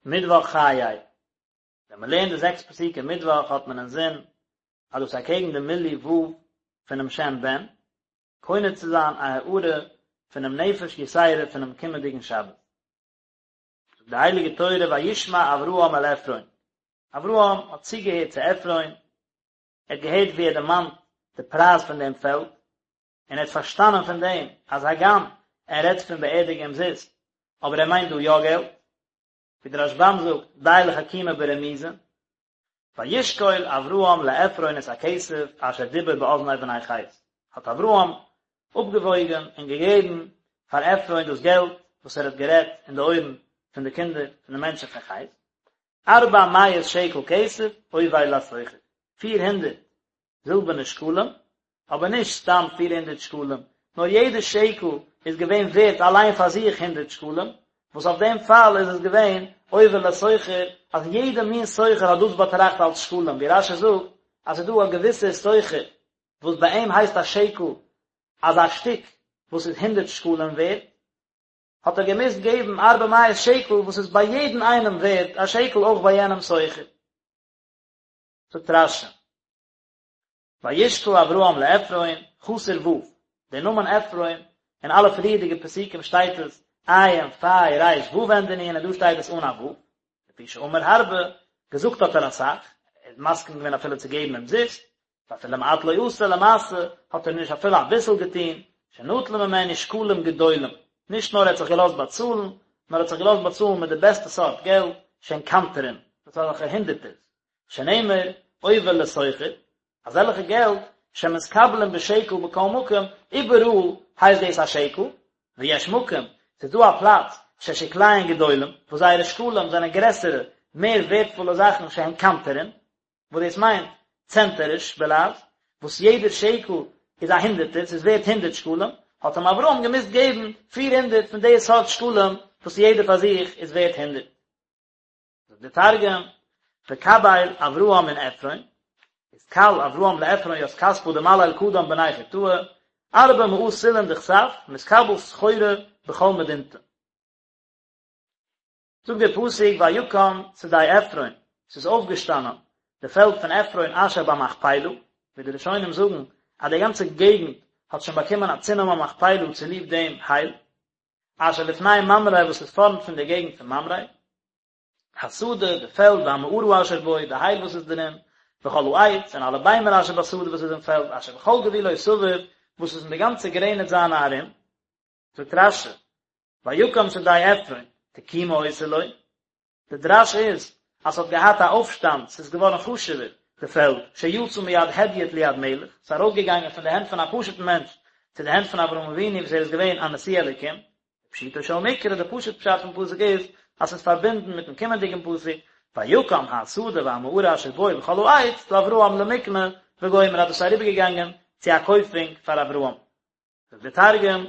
מיטוואך חיי. ווען מען לערנט די זעקס פסוקים מיטוואך האט מען אינזין אז דאס איז אקעגן די מילוי ו' פונעם שם בן, קונה צו זיין א הארה פונעם נפש יתירה פונעם קומענדיגן שבת. זאגט די הייליגע תורה וישמע אברהם אל עפרון, אברהם האט צוגעהערט צו עפרון, ער האט געהערט ווי ער דערמאנט די פרייז פון דעם פעלד, און ער האט פארשטאנען פון דעם אז הגם ער רעדט פון באערדיגן אומזיסט, אבער ער מיינט דא יא געלט, ווי דער רשב"ם זאגט, די לחכימא ברמיזא, וישקול אברהם לעפרון את הכסף אשר דיבר באזני בני חת, האט אברהם אפגעוואויגן און געגעבן פאר עפרון דאס געלט וואס ער האט גערעדט אין די אויערן פון די קינדער פון די מענטשן פון חת, ארבע מאות שקל כסף עובר לסוחר, פיר הונדערט זילבערנע שקלים, אבער נישט סתם פיר הונדערט שקלים, נאר יעדע שקל איז געווען ווערט אליין פאר זיך הונדערט שקלים, וואס אויף דעם פאל איז עס געווען עובר לסוחר, אז יעדע מין סוחר האט דאס באטראכט אלס שקלים, ווי רש"י זאגט אז ס'איז דא א געוויסער סוחר וואס ביי אים הייסט א שקל אזא שטיק וואס איז הונדערט שקלים ווערט, האט ער געמוזט געבן ארבע מאות שקל וואס איז ביי יעדן איינעם ווערט א שקל אויך ביי יענעם סוחר. זאגט רש"י, וישקל אברהם לעפרון, חסר ו', דער נאמען עפרון, אין אלע פריערדיגע פסוקים שטייט עס עיין פיי ריש ו' ענדע נון און דא שטייט עס אן א ו', לפי שאמר הרבה, געזאגט האט ער אסאך, ער איז מסכים געווען אפילו צו געבן אומזיסט, ואפילו מעט לא עשה, למעשה האט ער נישט אפילו אביסל געטון, שנטל ממנו שקלים גדולים, נישט נאר ער האט זיך געלאזט באצאלן, נאר ער האט זיך געלאזט באצאלן מיט די בעסטע סארט געלט, שהן קנטרין, דאס איז אזעלכע הונדערטערס, שנאמר, עובר לסוחר, אזעלכע געלט, שמתקבלין בשקל בכל מקום, איבעראל הייסט דאס א שקל, ויש מקום, ס'איז דא א פלאץ, ששקליהן גדולים, וואס זייערע שקלים זענען גרעסערע, מער ווערטפולע זאכן שהן קנטרין, וואס דאס מיינט צענטעריש בלע"ז, וואס יעדער שקל איז א הונדערטער, ס'איז ווערט הונדערט שקלים, האט אים אברהם געמוזט געבן פיר הונדערט פון די סארט שקלים וואס יעדער פאר זיך איז ווערט הונדערט. זאגט דער תרגום, וקביל אברהם מן עפרון, אתקל אברהם לעפרון ית כספא דמליל קדם בני חתאה, ארבע מאה סלעין דכסף, מתקבל סחורה בכל מדינתא. זאגט דער פסוק ויקם שדה עפרון, ס'איז אויפגעשטאנען די פעלד פון עפרון אשר במכפלה, ווי די ראשונים זאגן אז די גאנצע געגנט האט שוין באקומען א צונאמען מכפלה צוליב דעם הייל, אשר לפני ממרא וואס איז פארנט פון די געגנט פון ממרא, השדה, די פעלד, והמערה אשר בו, די הייל וואס איז דערין, וכל העץ, און אלע ביימער אשר בשדה וואס איז אין פעלד, אשר בכל גבולו סביב, וואס איז אין די גאנצע גרעניץ זיינע ארום. זאגט רש"י, ויקם שדה עפרון, תקומה היתה לו, די דרש איז אז ס'האט געהאט א אויפשטאנד, ס'איז געווארן חשוב'ער, די פעלד, שיצא מיד הדיוט ליד מלך, ס'איז ארויסגעגאנגען פון די הענט פון א פשוט'ן מענטש צו די הענט פון אברהם אבינו וואס ער איז געווען א נשיא אלוקים. פשוטו של מקרא, די פשוט פשט פון פסוק איז אז ס'איז פארבינדן מיט'ן קומענדיגן פסוק, ויקם השדה והמערה אשר בו וכל העץ לאברהם למקנה וגומר אז דאס איז אריבערגעגאנגען צו א קויפונג פאר אברהם. זאגט דער תרגום,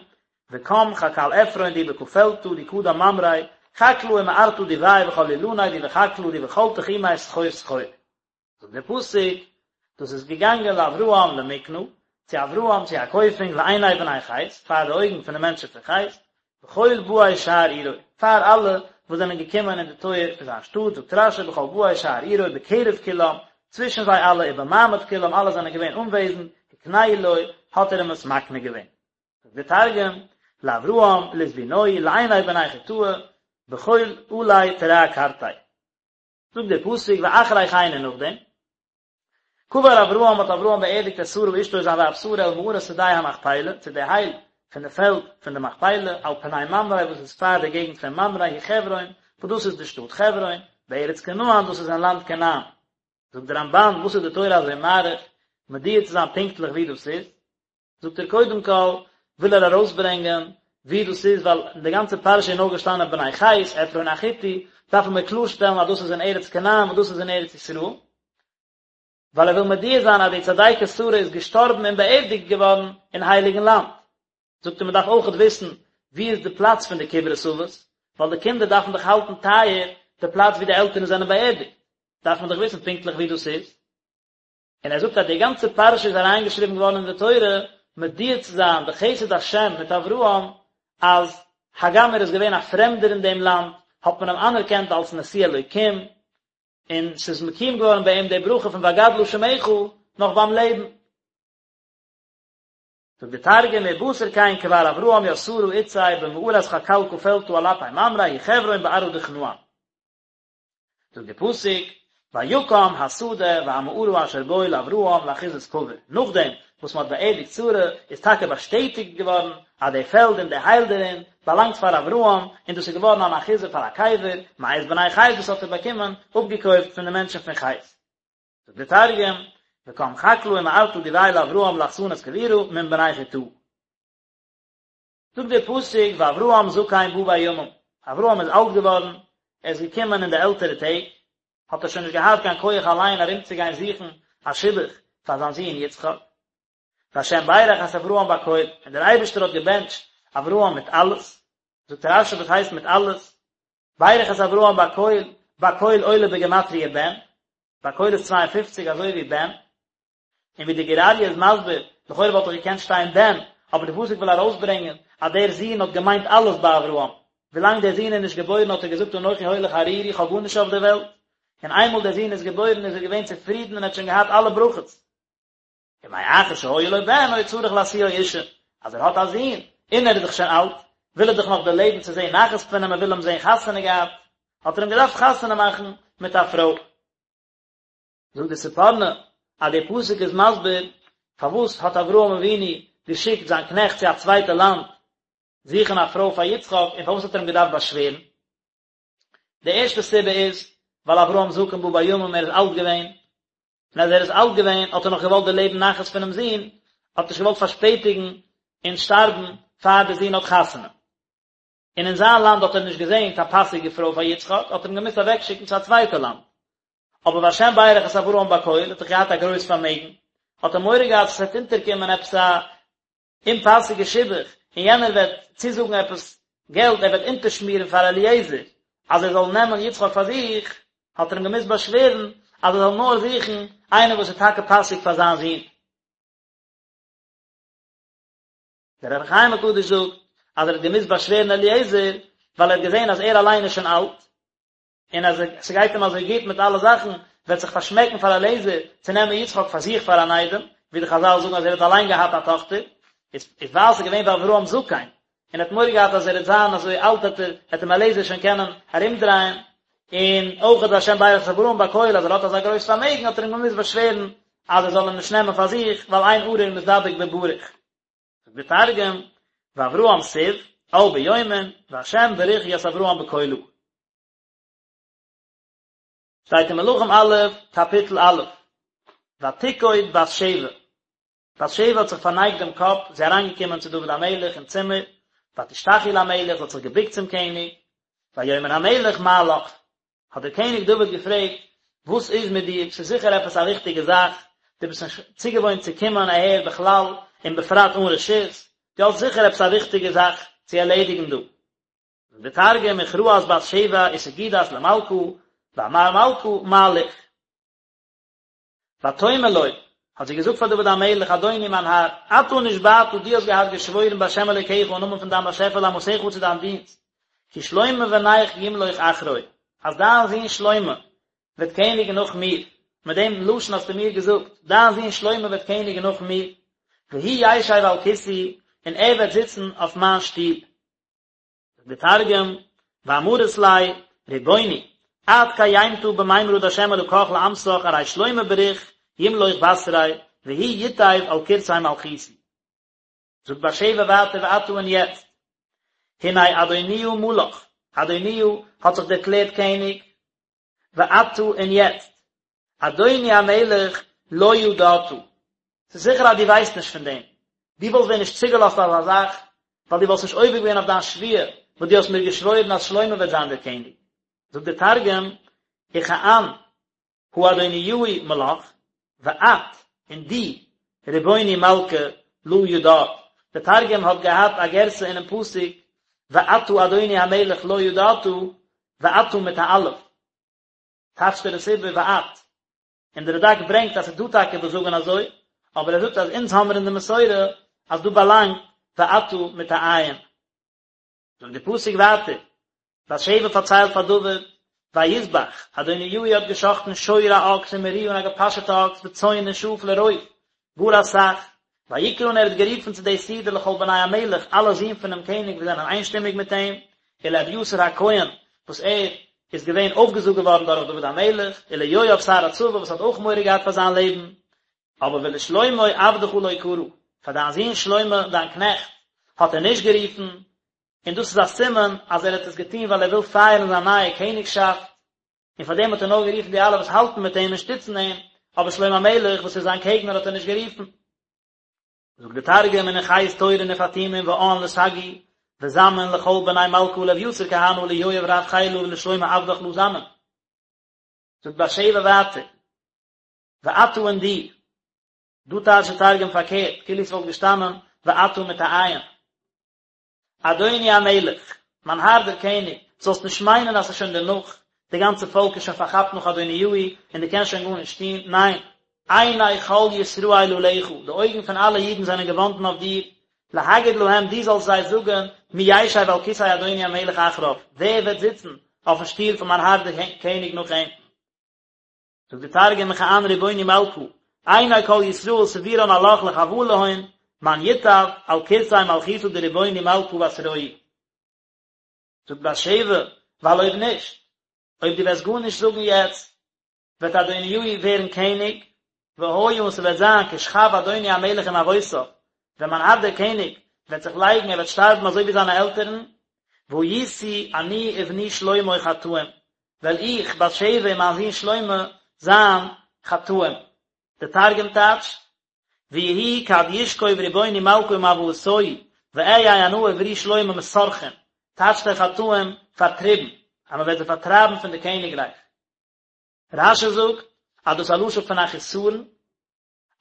וקם חקל עפרון די בכפלתא די קדם ממרא, חקלא ומערתא דביה וכל אילניה די בחקלא די בכל תחומיה סחור סחור. זאגט דער פסוק, דאס איז געגאנגען לאברהם למקנה, צו אברהם צו א קויפונג לעיני בני חת, פאר די אויגן פון די מענטשן פון חת, בכל באי שער עירו, פאר אלע וואס זענען געקומען אין די טויער פון זיין שטאט, זאגט רש"י בכל באי שער עירו בקרב כולם, צווישן זיי אלע ובמעמד כולם, אלע זענען געווען אנוועזנד, הקנהו לו, האט ער אים עס מקנה געווען. זאגט דער תרגום, לאברהם לזבונוהי לעיני בני חתאה, בכל עלי תרע קרתיה. זאגט דער פסוק ואחרי כן און נאכדעם, קבר אברהם האט אברהם באערדיגט את שרה אשתו זיין ווייב שרה אל מערת שדה המכפלה, צו די הייל פון די פעלד פון די מכפלה, על פני ממרא וואס איז פאר די געגנט פון ממרא היא חברון, וואס דאס איז די שטאט חברון, בארץ כנען דאס איז אין לאנד כנען. זאגט דער רמב"ן, וואס איז די תורה אזוי מאריך מודיע צו זיין פונקטליך ווי דאס איז? זאגט ער קודם כל וויל ער ארויסברענגען ווי דאס איז ווייל אין די גאנצע פרשה איז נאר געשטאנען בני חת עפרון החתי דארפן מיר קלארשטעלן אז דאס איז אין ארץ כנען וואס דאס איז אין ארץ ישראל ווייל ער וויל מודיע זיין אז די צדיקת שרה איז געשטארבן און באערדיגט געווארן אין הייליגן לאנד זאגט ער מען דארף אויכעט וויסן ווי איז די פלאץ פון די קברות אבות ווייל די קינדער דארפן דאך האלטן טייער די פלאץ ווי די עלטערן זענען באערדיגט דארף מען דאך וויסן פונקטליך ווי דאס איז. און ער זאגט אז די גאנצע פרשה איז אריינגעשריבן געווארן אין די תורה מודיע צו זיין די חסד השם מיט אברהם אז הגם ער איז געווען א פרעמדער אין דעם לאנד. האט מען אים אנערקענט אלס נשיא אלוקים, און ס'איז מקוים געווארן ביי אים די ברכה פון ואגדלה שמך נאך ביים לעבן. זאגט די תרגום ובתר כן כבר אברהם ית שרה אתתיה במערת חקלקא פלטא על אפי ממרא היא חברון בארעא דכנען. זאגט די פסוק, ויקם השדה והמערה אשר בו לאברהם לאחוזת קבר, נאכדעם וואס מען האט באערדיגט שרה איז טאקע באשטעטיגט געווארן אז די פעלד און די הייל דערין באלאנגט פאר אברהם, און דאס איז געווארן אן אחוזה פאר א קבר, מאת בני חת דאס האט ער באקומען אפגעקויפט פון די מענטשן פון חת. זאגט די תרגום, וקם חקלא ומערתא דביה לאברהם לאחסנת קבורא מן בני חתאה. זאגט דער פסוק ואברהם זקן בא בימים, אברהם איז אלט געווארן, ער איז געקומען אין די עלטערע טעג, האט ער שוין נישט געהאט קיין כח אליין ארומצוגיין זוכן א שידוך פאר זיין זון יצחק. והשם ברך את אברהם בכל, און דער אייבערשטער האט געבענטשט אברהם מיט אלעס, זאגט רש"י וואס הייסט מיט אלעס? ברך את אברהם בכל, בכל עולה בגימטריא בן, בכל איז 52 אזוי ווי בן, און ווי די גור אריה איז מסביר, לכאורה וואלט דאך געקענט שטיין בן, אבער די פסוק וויל ארויסברענגען אז דער זון האט געמיינט אלעס ביי אברהם, ווילאנג דער זון איז נישט געבוירן האט ער געזאגט אנכי הולך ערירי איך האב גארנישט אויף דער וועלט, און איינמאל דער זון איז געבוירן איז ער געווען צופרידן און ער האט שוין געהאט אלע ברכות. ומאחר שהיה לו בן היה צריך להשיאו אישה, אז ער האט א זון, און ער איז דאך שוין אלט, וויל ער דאך נאך דערלעבן צו זען נחת פון אים, ער וויל אים זען חתונה געהאט, האט ער אים געדארפט חתונה מאכן מיט א פרוי. זאגט די ספורנו אז דער פסוק איז מסביר פארוואס האט אברהם אבינו געשיקט זיין קנעכט צו א צווייטע לאנד זוכן א פרוי פאר יצחק און פארוואס האט ער אים געדארפט באשווערן. די ערשטע סיבה איז ווייל אברהם זקן בא בימים ער איז אלט געווען, און אז ער איז אלט געווען האט ער נאך געוואלט דערלעבן נחת פונעם זון, האט נישט געוואלט פארשפעטיגן און שטארבן פאר דער זון האט חתונה. און אין זיין לאנד האט ער נישט געזען קיין פאסיגע פרוי פאר יצחק, האט ער אים געמוזט אוועקשיקן צו א צווייטע לאנד. אבער והשם ברך את אברהם בכל, האט דאך געהאט א גרויס פארמעגן, האט ער מורא געהאט אז עס וועט אונטערקומען עפעס א אומפאסיגע שידוך, און יענער וועט צוזאגן עפעס געלט, ער וועט אונטערשמירן פאר אליעזר אז ער זאל נעמען יצחק פאר זיך, האט ער אים געמוזט באשווערן אז ער זאל נאר זוכן איינער וואס איז טאקע פאסיג פאר זיין זון. דער אור החיים הקדוש זאגט אז ער האט געמוזט באשווערן אליעזר ווייל ער האט געזען אז ער אליין איז שוין אלט, און אז ס'גייט אים אזוי גוט מיט אלע זאכן, וועט זיך פארשמעקן פאר אליעזר צו נעמען יצחק פאר זיך פאר אן איידעם, ווי די חזל זאגן אז ער האט אליין געהאט א טאכטער, איז ווייל ס'איז געווען ואברהם זקן, און ער האט מורא געהאט אז ער וועט זיין אזוי אלט וועט ער וועט אים אליעזר שוין קענען ארומדרייען, און אויך והשם ברך את אברהם בכל אז ער האט אזא גרויס פארמעגן האט ער אים געמוזט באשווערן אז ער זאל אים נישט נעמען פאר זיך, ווייל אין ארור מתדבק בברוך. זאגט דער תרגום, ואברהם סיב, על ביומין, והשם בריך ית אברהם בכלא. שטייט אין מלכים א', קאפיטל א', ותקוד בת שבע, בת שבע האט זיך פארנייגט דעם קאפ, זי איז אריינגעקומען צו דוד המלך אין צימער, ותשתחו למלך, זי האט זיך געבוקט צום קעניג, ויאמר המלך מה לך, האט דער קעניג דוד געפרעגט, וואס איז מיט דיר, ס'איז זיכער עפעס א וויכטיגע זאך, דו ביסט נישט צוגעוואוינט צו קומען אהער בכלל, און בפרט אן רשות, דו האסט זיכער עפעס א וויכטיגע זאך צו ערלעדיגן דא. זאגט דער תרגום, וכרעת בת שבע וסגידת למלכא, ואמר מלכא מה ליך. ותאמר לו, האט זי געזאגט פאר דוד המלך, אדוני מיין האר, אתה נשבעת, דו האסט געהאט געשוואוירן בהשם אלוקיך אין נאמען פון דיין באשעפער לאמתך צו דיין דינסט, כי שלמה בנך ימלוך אחרי, אז דיין זון שלמה וועט קעניגן נאך מיר, מיט דעם לשון האסטו מיר געזאגט, דיין זון שלמה וועט קעניגן נאך מיר, והוא ישב על כסאי, און ער וועט זיצן אויף מיין שטול. זאגט דער תרגום, ואמרת ליה, רבוני, את קיימתא במימרא דהשם אלקך לאמתך ארי שלמה בריך ימלוך בתרי והוא יתיב על כורסי מלכותי. זאגט בת שבע ווייטער ועתה און יעצט, הנה אדוניה מלך, אדוניה האט זיך דערקלערט קעניג, ועתה און יעצט, אדוני המלך לא ידעת, ס'איז זיכער אז דו ווייסט נישט פון דעם, דו וואלסט ווען נישט צוגעלאזט אזא זאך, ווייל דו וואלסט נישט עובר געווען אויף דיין שבועה וואס דו האסט מיר געשוואוירן אז שלמה וועט זיין דער קעניג. זאגט דער תרגום, וכען הא אדוניהו מלך, ואת, און דו, רבוני מלכא, לא ידעת, דער תרגום האט געהאט א גירסא אינעם פסוק, ואתה אדוני המלך לא ידעת, ואתה מיט א אלף, טייטשט ער עס איבער ואת, און דער רד"ק ברענגט אז ס'איז דא טאקע וואס זאגן אזוי, אבער ער זאגט אז אונז האמיר אין די מסורה אז דא באלאנגט ואתה מיט א עין. זאגט די פסוק ווייטער. בת שבע פארציילט פאר דוד, ויזבח, אדוניהו האט געשחטן שור א אקס ומריה און א געפאשעטע אקס וצאן און שאף לרוב, גאר אסאך, ויקרא און ער האט גערופן צו די סעודה לכל בני המלך, אלע זין פונעם קעניג וואס זענען איינשטימיג מיט אים, ולאביתר הכהן, וואס ער איז געווען אויפגעזאגט געווארן דורך דוד המלך, וליואב שר הצבא וואס האט אויך מורא געהאט פאר זיין לעבן, אבער ולשלמה עבדך לא קרא, פאר דיין זון שלמה דיין קנעכט האט ער נישט גערופן, און דאס איז א סימן אז ער האט עס געטון ווייל ער וויל פייערן זיין נייע קעניגשאפט, און פאר דעם האט ער נאר גערופן די אלע וואס האלטן מיט אים און שטיצן אים, אבער שלמה המלך וואס איז זיין קעגנער האט ער נישט גערופן. זאגט דער תרגום ונכייס תורין ופטימין ועאן לסגי וזמין לכל בני מלכא ולאביתר כהנא וליואב רב חילא ולשלמה עבדך לא זמין. זאגט בת שבע ווייטער, ואתה און דו, דא טייטשט דער תרגום פארקערט, כאילו ס'וואלט געשטאנען ואתה מיט א עין. אדוני המלך, מיין האר דער קעניג, זאלסט נישט מיינען אז ס'איז שוין דערנאך, די גאנצע פאלק איז שוין פארכאפט נאך אדוניהו, און דו קענסט שוין גארנישט טון, ניין, עיני כל ישראל עליך, די אויגן פון אלע אידן זענען געוואנדן אויף דיר, להגיד להם, דו זאלסט זיי זאגן, מי ישב על כסא אדוני המלך אחריו, ווער וועט זיצן אויפן שטול פון מיין האר דער קעניג נאך אים? זאגט די תרגום מכאן רבוני מלכא, עיני כל ישראל סבירן עלך לחואה להון, מן יתיב על כורסי מלכותא דרבוני מלכא בתרוהי. זאגט בת שבע, ווייל אויב נישט, אויב דו וועסט גארנישט זאגן יעצט, וועט אדוניהו ווערן קעניג, והיה און ס'וועט זיין כשכב אדוני המלך עם אבותיו, ווען מיין האר דער קעניג וועט זיך לייגן, ער וועט שטארבן אזוי ווי זיינע עלטערן, והייתי אני ובני שלמה חטאים, וועל איך, בת שבע און מיין זון שלמה, זיין חטאים. דער תרגום טייטשט, ויהי כד ישכוב רבוני מלכא עם אבהתוהי, ואהי אנא וברי שלמה מסרחין, טייטשט ער חטאים, פארטריבן, אז מען וועט זיי פארטרייבן פון די קעניגרייך. רש"י זאגט אז דאס איז א לשון פון א חיסרון,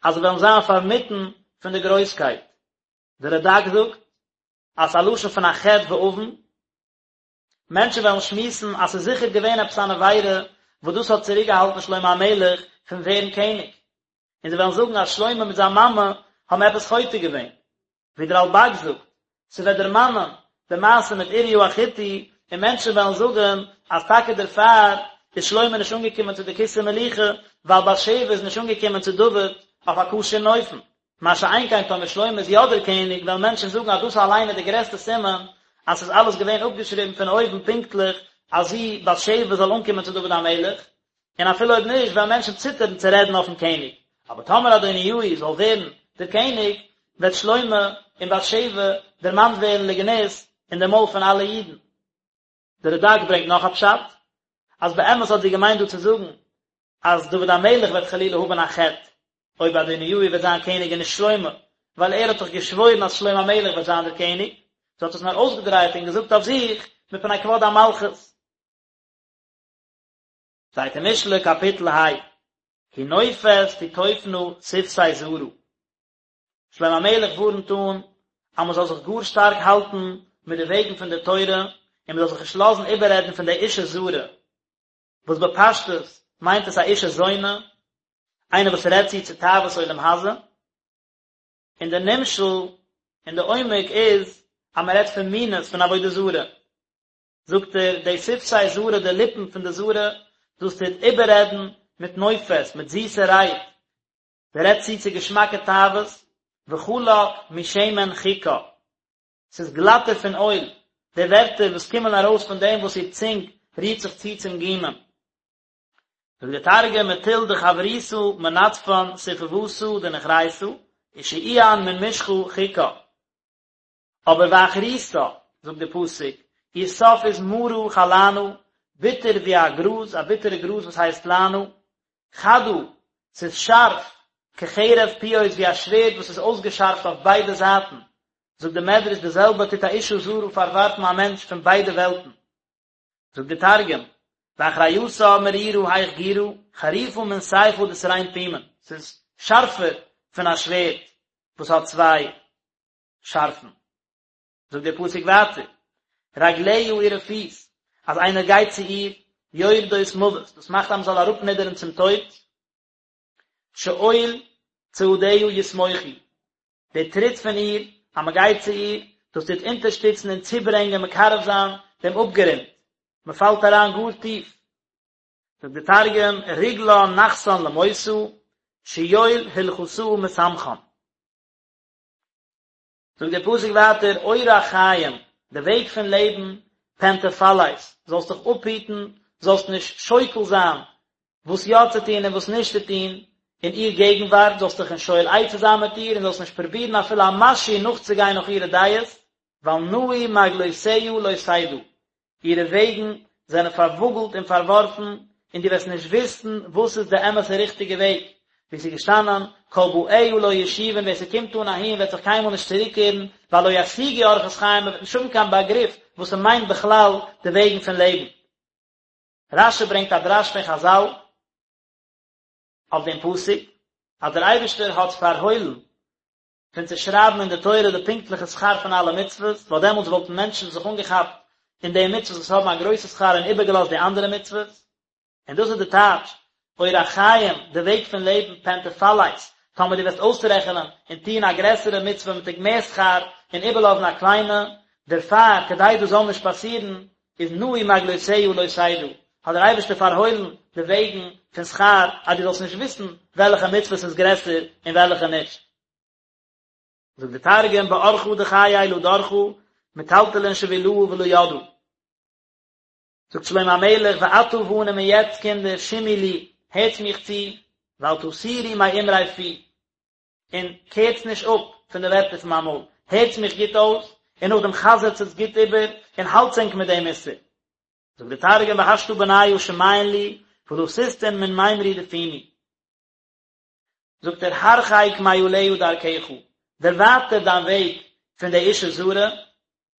אז זיי וועלן זיין פארמיטן פון די גרויסקייט. דער רד"ק זאגט אז ס'איז א לשון פון א חטא ועוון, מענטשן וועלן שמועסן אז ס'איז זיכער געווען עפעס אן עבירה וואס דאס האט צוריקגעהאלטן שלמה המלך פון ווערן קעניג, און זיי וועלן זאגן אז שלמה מיט זיין מאמע האבן עפעס חוטא געווען, ווי דער רלב"ג זאגט, ס'וועט דערמאנען די מעשה מיט אוריה החתי, און מענטשן וועלן זאגן אז טאקע דערפאר איז שלמה נישט אנגעקומען צו די כסא מלוכה, ווייל בת שבע איז נישט אנגעקומען צו דוד אויף א כשר'ן אופן. מה שאין כן טאמער שלמה איז יא דער קעניג וועלן מענטשן זאגן אז דאס אליין איז די גרעסטע סימן אז ס'איז אלעס געווען אפגעשריבן פון אויבן פונקטליך אז זי, בת שבע, זאל אנקומען צו דוד המלך, און אפילו אויב נישט וועלן מענטשן ציטערן צו רעדן אויפן קעניג. אבער טאמער אדוניהו זאל ווערן דער קעניג, וועט שלמה און בת שבע דערמאנט ווערן לגנות אין די מויל פון אלע אידן. דער רד"ק ברענגט נאך א פשט, אז באמת האט זי געמיינט דא צו זאגן אז דוד המלך וועט חלילה האבן א חטא אויב אדוניהו וועט זיין קעניג און נישט שלמה, ווייל ער האט דאך געשוואוירן אז שלמה המלך וועט זיין דער קעניג, זי האט עס נאר אויסגעדרייט און געזאגט אויף זיך מפני כבוד המלכות. שטייט אין משלי קאפיטל ה, כי נופת תיטופנה שפתי זרה. שלמה המלך ווארנט אן אז מען זאל זיך גאר שטארק האלטן מיט די וועגן פון די תורה און מען זאל זיך נישט לאזן איבעררעדן פון די אישה זרה, וואס בפשטות מיינט עס א אישה זונה, איינער וואס רעדט צו צו תאוות עולם הזה, און די נמשל און די עומק איז אז מען רעדט פון מינות פון עבודה זרה, זאגט ער, די שפתי זרה, די ליפן פון די זרה, דאס טוט איבעררעדן מיט נופת, מיט זיסע רייד, זי רעדט צו צו געשמאקע תאוות, וחלק משמן חכה, ס'איז גלאטער פון אויל, די ווערטער וואס קומען ארויס פון דעם וואס איר צונג רירט זיך צו צום גומען. זאגט דער תרגום, מטול דחבריתא מנדפן ספוותא דנוכריתא, ושעיען מן משחא חכא. אבער ואחריתה, זאגט דער פסוק, איר סוף איז מרה כלענה, ביטער ווי א גראז, א ביטערע גראז וואס הייסט לענה, חדה, ס'איז שארף, כחרב פיות ווי א שווערד וואס איז אויסגעשארפט אויף ביידע זייטן, זאגט דער מדרש די זעלבע טוט א אישה זרה פארווארפן א מענטש פון ביידע וועלטן. זאגט דער תרגום, ואחריתה מרירא היך גירא, חריפא מן סיפא דתרין פומין, ס'איז שארפער פון א שווערד וואס האט צוויי שארפן. זאגט דער פסוק ווייטער, רגליה אירע פיס, אז איינער גייט צו איר, יורדות מוות, דאס מאכט אז מען זאל אראפנידערן צום טויט, שאול צעדיה יסמוכו, די טריט פון איר, אז מען גייט צו איר, דאס טוט אונטערשטיצן און צוברענגען מקרב זיין דעם אפגרונט. מען פאלט אריין גאר טיף. זאגט די תרגום, רגלן נחתן למותא, שיול הולכתא מסמכן. זאגט דער פסוק ווייטער, אורח חיים, די וועג פון לעבן, פן תפלש, זאלסט דיך אפהיטן, זאלסט נישט שוקל זיין וואס יא צו טון און וואס נישט צו טון, אין איר געגנווארט, זאלסט דיך נישט שואל עצה זיין מיט איר, און זאלסט נישט פרובירן אפילו א משהו נאכצוגיין נאך אירע דעות, ווייל נעו מעגלותיה לא תדע, אירע וועגן זענען פארוואגלט און פארווארפן, און דו וועסט נישט וויסן וואס איז די אמת'ע ריכטיגע וועג, ווי ס'איז געשטאנען, כל באיה לא ישובון, ווער ס'קומט אן אהין וועט זיך קיינמאל נישט צוריקקערן, ווייל לא ישיגו אורחות חיים, מ'וועט נישט האבן קיין באגריף וואס ס'מיינט בכלל די וועגן פון לעבן. רש"י ברענגט א דרש פון חז"ל אויף דעם פסוק, אז דער אייבערשטער האט פארהוילן פון צו שרייבן אין די תורה די פונקטליכע שכר פון אלע מצוות, ווייל דעמאלטס וואלטן מענטשן זיך אנגעכאפט אין די מצוות וואס האבן א גרויסע שכר און איבערגעלאזט די אנדערע מצוות. און דאס איז די טייטש, אורח חיים, די וועג פון לעבן, פן תפלש, טאמער דו וועסט אויסרעכענען און טון א גרעסערע מצוה מיט מער שכר און איבערלאזן א קליינע, דערפאר, כדי דאס זאל נישט פאסירן, איז נעו מעגלותיה לא תדע, האט דער אייבערשטער פארהוילן די וועגן פון שכר אז דו זאלסט נישט וויסן וועלכע מצוות איז גרעסער און וועלכע נישט. זאגט די תרגום באורחא דחיי לא דרכא מטלטלין שבילהא ולא ידעא. זאגט שלמה המלך ועתה בנים און יעצט קינדער שמעו לי, הערטס מיך צו, ואל תסורו מאמרי פי, און קערטס נישט אפ פון די ווערטער פון מיין מויל, הערטס מיך גוט אויס, און נאכדעם חזר'טס עס גוט איבער, און האלטס ענק מיט דעם מוסר. זאגט די תרגום והשתא בניא שמעון לי, ולא תסטון מן מימרי דפומי. זאגט ער הרחק מעליה דרכך, דערווייטער דיין וועג פון די אישה זרה,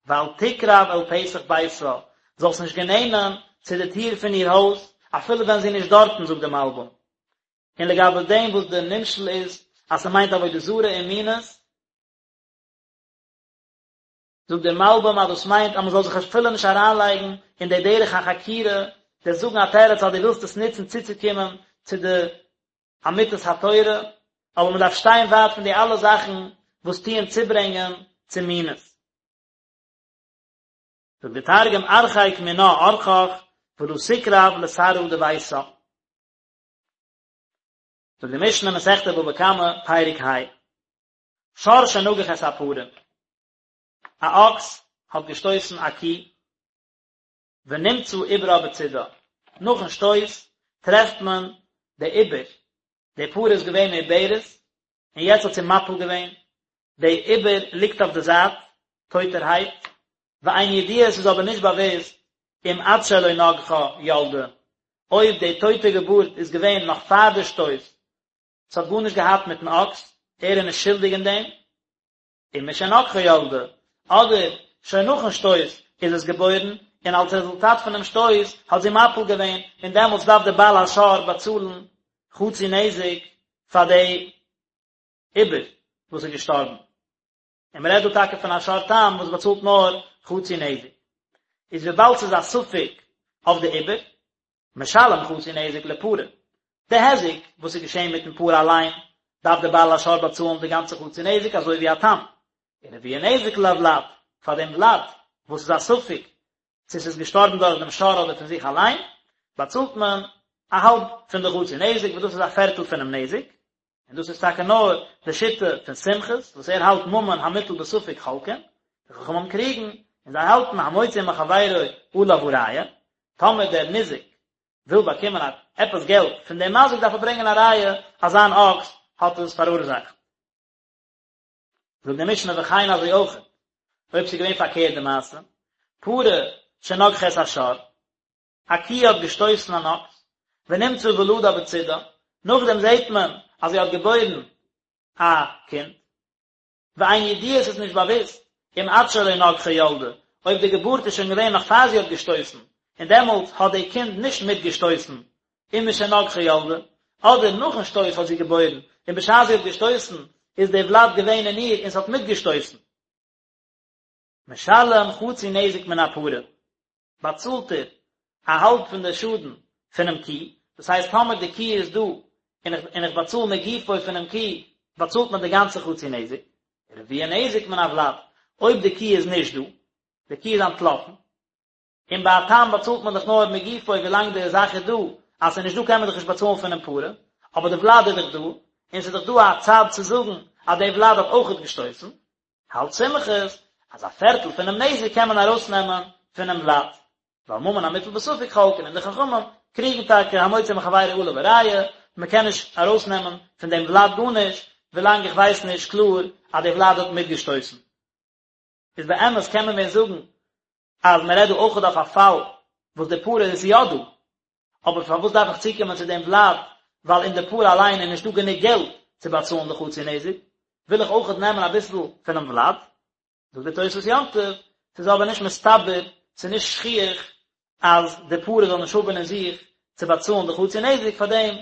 ואל תקרב אל פתח ביתה, זאלסט נישט גענענען צו די טיר פון איר הויז, אפילו ווען זי איז נישט דארטן, זאגט די מלבים. און לגבי דעם וואס די נמשל איז אז ס'מיינט עבודה זרה און מינות, זאגט דער מלבים אז דאס מיינט אז מ'זאל זיך אפילו נישט אריינלייגן אין די דרך החקירה, די זאגן א תירוץ אז דו ווילסט עס נוצן צוצוקומען צו די אמיתת התורה, אבער מ'דארף שטיין ווייט פון די אלע זאכן וואס טוען צוברענגען צו מינות. זאגט די תרגום ארחק מינה ארחך ולא תקרב לתרעא דביתה. זאגט די משנה מסכת בבא קמא פרק ה, שור שנגח את הפרה, א אקס האט געשטויסן א קי, ונמצא עוברה בצידה, נאכן שטויס טרעפט מען די עובר, די פרה איז געווען מעוברת, און יעצט האט זי מפיל געווען, די עובר ליגט אויף די זייט, טויטערהייט, ואין ידוע עס איז אבער נישט באוואוסט אם עד שלא נגחה ילדה, אויב די טויטע געבורט איז געווען נאך פאר די שטויס, ס'האט גארנישט געהאט מיטן אקס, ער איז נישט שולדיג אין דעם, אם משנגחה ילדה, אדער שוין נאכן שטויס איז עס געבוירן, און אלס רעזולטאט פונעם שטויס האט זי מפיל געווען, און דעמאלטס דארף דער בעל השור באצאלן חצי נזק פאר די עובר וואס איז געשטארבן. און מען רעדט דא טאקע פון א שור תם וואס באצאלט נאר חצי נזק, איז וויבאלד ס'איז א ספק אויף די עובר, משלם חצי נזק לפרה, די היזק וואס איז געשען מיטן פרה אליין, דארף דער בעל השור באצאלן די גאנצע חצי נזק אזוי ווי א תם, און רביע נזק לוולד, פאר דעם ולד וואס איז א ספק צו ס'איז געשטארבן דורך דעם שור אדער פון זיך אליין, באצאלט מען א האלב פון די חצי נזק וואס דאס איז א פערטל פונעם נזק, און דאס איז טאקע נאר די שיטה פון סומכוס וואס ער האלט ממון המוטל בספק חולקין, די חכמים קריגן און זיי האלטן המוציא מחבירו עליו הראיה, טאמער דער ניזק וויל באקומען א עפעס געלט פון דעם מזיק דארף ער ברענגען א ראיה אז זיין אקס האט עס פאראורזאכט. זאגט די משנה וכן אזוי אויך אויב ס'איז געווען פארקערט די מעשה, פרה שנגחה את השור, א קי האט געשטויסן אן אקס, ונמצא ולדה בצידה, נאכדעם זעט מען אז זי האט געבוירן א קינד, ואין ידוע עס איז נישט באוואוסט, אם עד שלא נגחה ילדה, אויב די געבורט איז שוין געווען נאך פאר זי האט געשטויסן, און דעמאלטס האט די קינד נישט מיטגעשטויסן, אם משנגחה ילדה, אדער נאכן שטויס האט זי געבוירן, און בשעת זי האט געשטויסן איז די ולד געווען אין איר און ס'האט מיטגעשטויסן. משלם חצי נזק מן הפרה, באצאלט ער א האלב פון די שאדן פונעם קי, דאס הייסט טאמער די קי איז דא און איך און איך באצאל מגופו פונעם קי, באצאלט מען די גאנצע חצי נזק, רביע נזק מן הוולד, אויב די קי איז נישט דא, די קי איז אנטלאפן. און ביי א תם באצאלט מען דאך נאר מגופו ווילאנג די זאך איז דא, אז ס'איז נישט דא קען מען דאך נישט באצאלן פונעם פרה, אבער די ולד איז דאך דא, און ס'איז דאך דא א צד צו זאגן אז די ולד האט אויכעט געשטויסן, האלט סומכוס אז א פערטל פונעם נזק קען מען ארויסנעמען פונעם ולד. ועל ממון המוטל בספק חולקין און די חכמים קריגן טאקע המוציא מחבירו עליו הראיה, מען קען נישט ארויסנעמען פון דעם ולד גארנישט ווילאנג איך ווייס נישט קלאר אז די ולד האט מיטגעשטויסן. איז באמת קען מען ווען זאגן אז מען רעדט דא אויכעט אויף א פאל וואס די פרה איז יא דא, אבער פארוואס דארף איך צוקומען צו דעם ולד, ווייל אין די פרה אליין איז נישטא גענוג געלט צו באצאלן די חצי נזק, וויל איך אויכעט נעמען אביסל פונעם ולד. זאגט דער תוספות יום טוב, ס'איז אבער נישט מסתבר, ס'איז נישט שכיח אז די פרה זאל נישט האבן אין זיך צו באצאלן די חצי נזק, פארדעם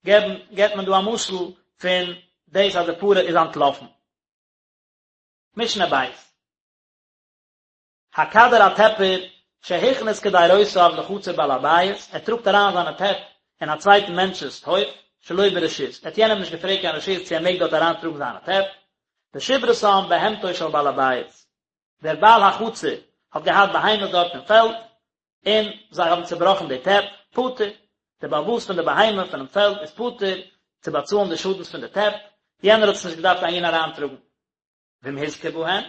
געבן געבט מען דא א משל פון דאס אז די פרה איז אנטלאפן. משנה בית. הקדר א טעפער שהכניס קדירותיו לחצר בעל הבית, ער טראגט אריין זיינע טעפ אין א צווייטן מענטש'ס הויף, שלא ברשות, ער האט יענעם נישט געפרעגט קיין רשות צו ער מעג דארט אריין טראגן זיינע טעפ, ושיברתם בהמתו של בעל הבית, דער בעל החצר האט געהאט בהמות דארט אין פעלד, און זיי האבן צעבראכן די טעפ, פטור, דער בעל הבית פון די בהמה פונעם פעלד איז פטור צו באצאלן די שאדנס פון די טעפ, יענער האט עס נישט געדארפט אהין אריינטראגן. ואם הוזקה בהן,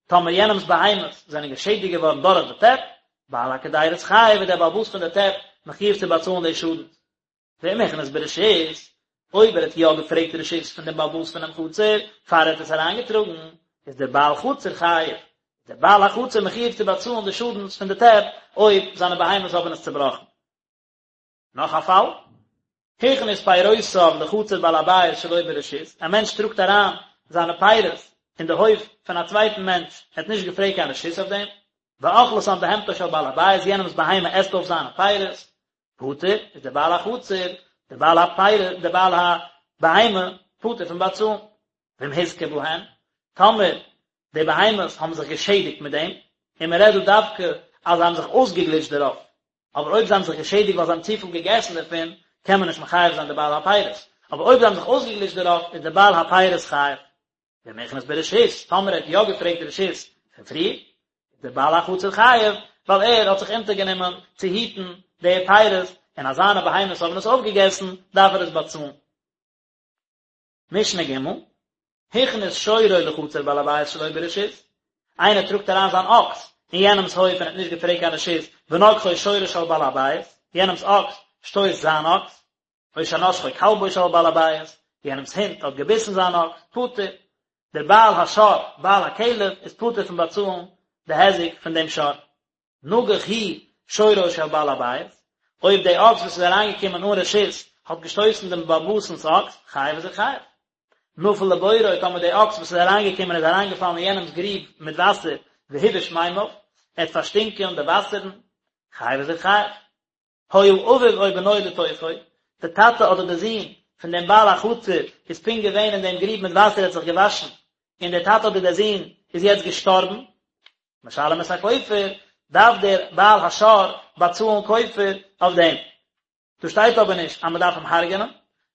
טאמער יענעמס בהמות זענען געשעדיגט געווארן דורך די טעפ, בעל הקדירות חייב איז דער בעל הבית פון די טעפ מחויב צו באצאלן די שאדנס. ואם הכניס ברשות, אויב ער האט יא געפרעגט רשות פון דעם בעל הבית פונעם חצר פאר ער האט עס אריינגעטראגן, איז דער בעל חצר חייב, איז דער בעל החצר מחויב צו באצאלן די שאדנס פון די טעפ אויב זיינע בהמות האבן עס צעבראכן. נאך א פאל, הכניס פירותיו לחצר בעל הבית שלא ברשות, א מענטש טראגט אריין זיינע פירות אין די הויף פון א צווייטן מענטש, ער האט נישט געפרעגט קיין רשות אויף דעם, ואכלתן בהמתו של בעל הבית, יענעמס בהמה עסט אויף זיינע פירות, פטור, איז דער בעל החצר, דער בעל הפירות, דער בעל הבהמה, פטור פון באצאלן. ואם הוזקה בהן, טאמער די בהמות האבן זיך געשעדיגט מיט דעם, און מען רעדט דא דווקא אז זיי האבן זיך אויסגעגליטשט דערויף, אבער אויב זיי האבן זיך געשעדיגט ווייל זיי האבן צופיל געגעסן דערפון, קען מען נישט מחייב זיין די בעל הפירות, אבער אויב זיי האבן זיך אויסגעגליטשט דערויף, איז דער בעל הפירות חייב. ואם הכניס ברשות, טאמער ער האט יא געפרעגט רשות פון פריער, איז דער בעל החצר חייב, ווייל ער האט זיך אונטערגענומען צו היטן די פירות, און אז זיינע בהמות האבן עס אויפגעגעסן, דארף ער עס באצאלן. משנה ג', הכניס שורו לחצר בעל הבית שלא ברשות, איינער טראגט אריין זיין אקס אין יענעמס הויף און האט נישט געפרעגט קיין רשות, ונגחו שורו של בעל הבית, יענעמס אקס שטויסט זיין אקס, או שנשכו כלבו של בעל הבית, יענעמס הונט האט געביסן זיין אקס, פטור, דער בעל השור, בעל הכלב, איז פטור פון באצאלן די היזק פון דעם שור. נגח הוא שורו של בעל הבית, אויב די אקס וואס איז אריינגעקומען אן רשות האט געשטויסן דעם בעל הבית'נס אקס, חייב איז ער חייב. נפל לבורו, טאמער די אקס וואס איז אריינגעקומען איז אריינגעפאלן אין יענעמס גריב מיט וואסער, והבאיש מימיו, ער האט פארשטינקען די וואסערן, חייב איז ער חייב. היה אביו או בנו לתוכו, די טאטע אדער די זון פון דעם בעל החצר איז פונקט געווען אין דעם גריב מיט וואסער ער האט זיך געוואשן, און דער טאטע אדער דער זון איז יעצט געשטארבן, משלם את הכופר, דארף דער בעל השור באצאלן כופר אויף דעם. דא שטייט אבער נישט אז מען דארף אים הרג'נען,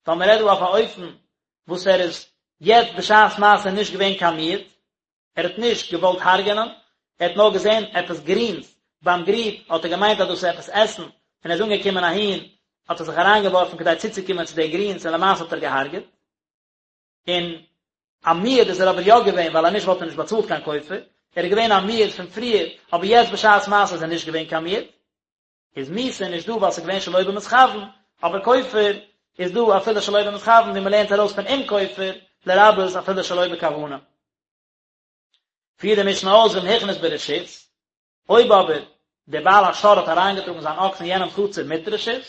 ווייל מען רעדט דא אויף א אופן וואס ער איז יעצט בשעת מעשה נישט געווען קיין מועד, ער האט נישט געוואלט הרג'נען, ער האט נאר געזען עפעס גרינס ביים גריב, האט ער געמיינט אז דאס איז עפעס עסן, און ער איז אנגעקומען אהין, האט ער זיך אריינגעווארפן כדי צוצוקומען צו די גרינס און למעשה האט ער געהארגעט. און א מועד איז ער אבער יא געווען, ווייל אז נישט וואלט ער נישט באצאלט קיין כופר, ער איז געווען א מועד פון פריער, אבער יעצט בשעת מעשה איז ער נישט געווען קיין מועד. איז מיתה נישט דא ווייל ס'איז געווען שלא במתכוון, אבער כופר איז דא אפילו שלא במתכוון ווי מ'לערנט ארויס פון אם כופר לרבות אפילו שלא בכוונה. פירט די משנה אויס ואם הכניס ברשות, אויב אבער דער בעל השור האט אריינגעטראגן זיין אקס אין יענעמ'ס חצר מיט רשות,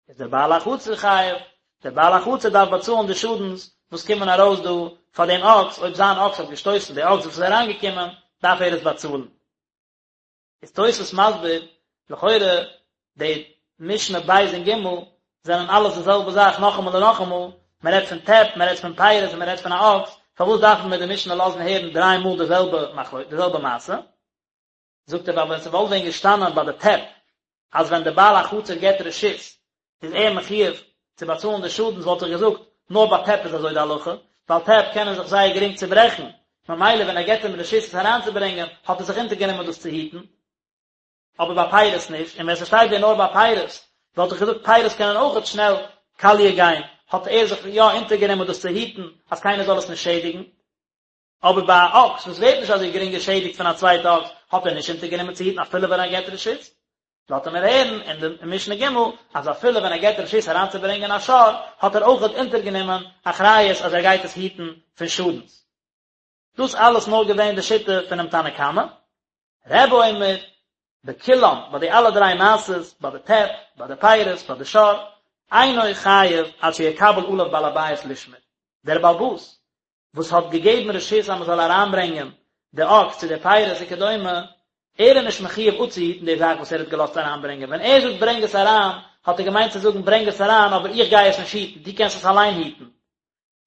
איז דער בעל החצר חייב, דער בעל החצר דארף באצאלן די שאדנס וואס קומען ארויס דא פאר דעם אקס, אויב זיין אקס האט געשטויסן די אקס וואס איז אריינגעקומען, דארף ער עס באצאלן. איז תוספות מסביר, לכאורה די משנה ב' און ג' זענען אלעס די זעלבע זאך נאכאמאל און נאכאמאל, מען רעדט פון טעפ, מען רעדט פון פירות און מען רעדט פון א אקס, פארוואס דארף מיר די משנה לאזן הערן דריי מאל די זעלבע מחלוקת, די זעלבע מעשה? זאגט ער ווייל ווען ס'וואלט ווען געשטאנען ביי די טעפ אז ווען די בעל החצר געבט רשות איז ער מחויב צו באצאלן די שאדנס וואלט איך געזאגט נאר ביי טעפ איז אזוי די הלכה, ווייל טעפ קענען זיך זייער גרינג צוברעכן, ממילא ווען ער געבט אים רשות עס אריינצוברענגען האט ער זיך אונטערגענומען דאס צו היטן. אבער ביי פירות נישט, און ווען ס'שטייט ווען נאר ביי פירות, וואלט איך געזאגט פירות קענען אויכעט שנעל קאליע גיין, האט ער זיך יא אונטערגענומען דאס צו היטן אז קיינער זאל עס נישט שעדיגן. אבער ביי א אקס וואס ווערט נישט אזוי גרינג געשעדיגט פון א צווייטע אקס, האט ער נישט אונטערגענומען צו היטן אפילו ווען ער געבט רשות. לאזט ער מיר הערן אין די משנה ג' אז אפילו ווען ער געבט רשות אריינצוברענגען א שור, האט ער אויכעט אונטערגענומען אחריות אז ער גייט עס היטן פון שאדנס. דאס אלעס נאר געווען די שיטה פונעם תנא קמא. רבי אומר, בכולם, ביי די אלע דריי מעשות, ביי די טעפ, ביי די פירות, ביי די שור, אינו חייב עד שיקבל עליו בעל הבית לשמור. דער בעל הבית וואס האט געגעבן רשות אז מען זאל אריינברענגען די אקס צו די פירות וכדומה, ער איז נישט מחויב אפצוהיטן די זאך וואס ער האט געלאזט אריינברענגען, ווען ער זאגט ברענג עס אריין, האט ער געמיינט צו זאגן ברענג עס אריין אבער איך גיי עס נישט היטן, דו קענסט עס אליין היטן.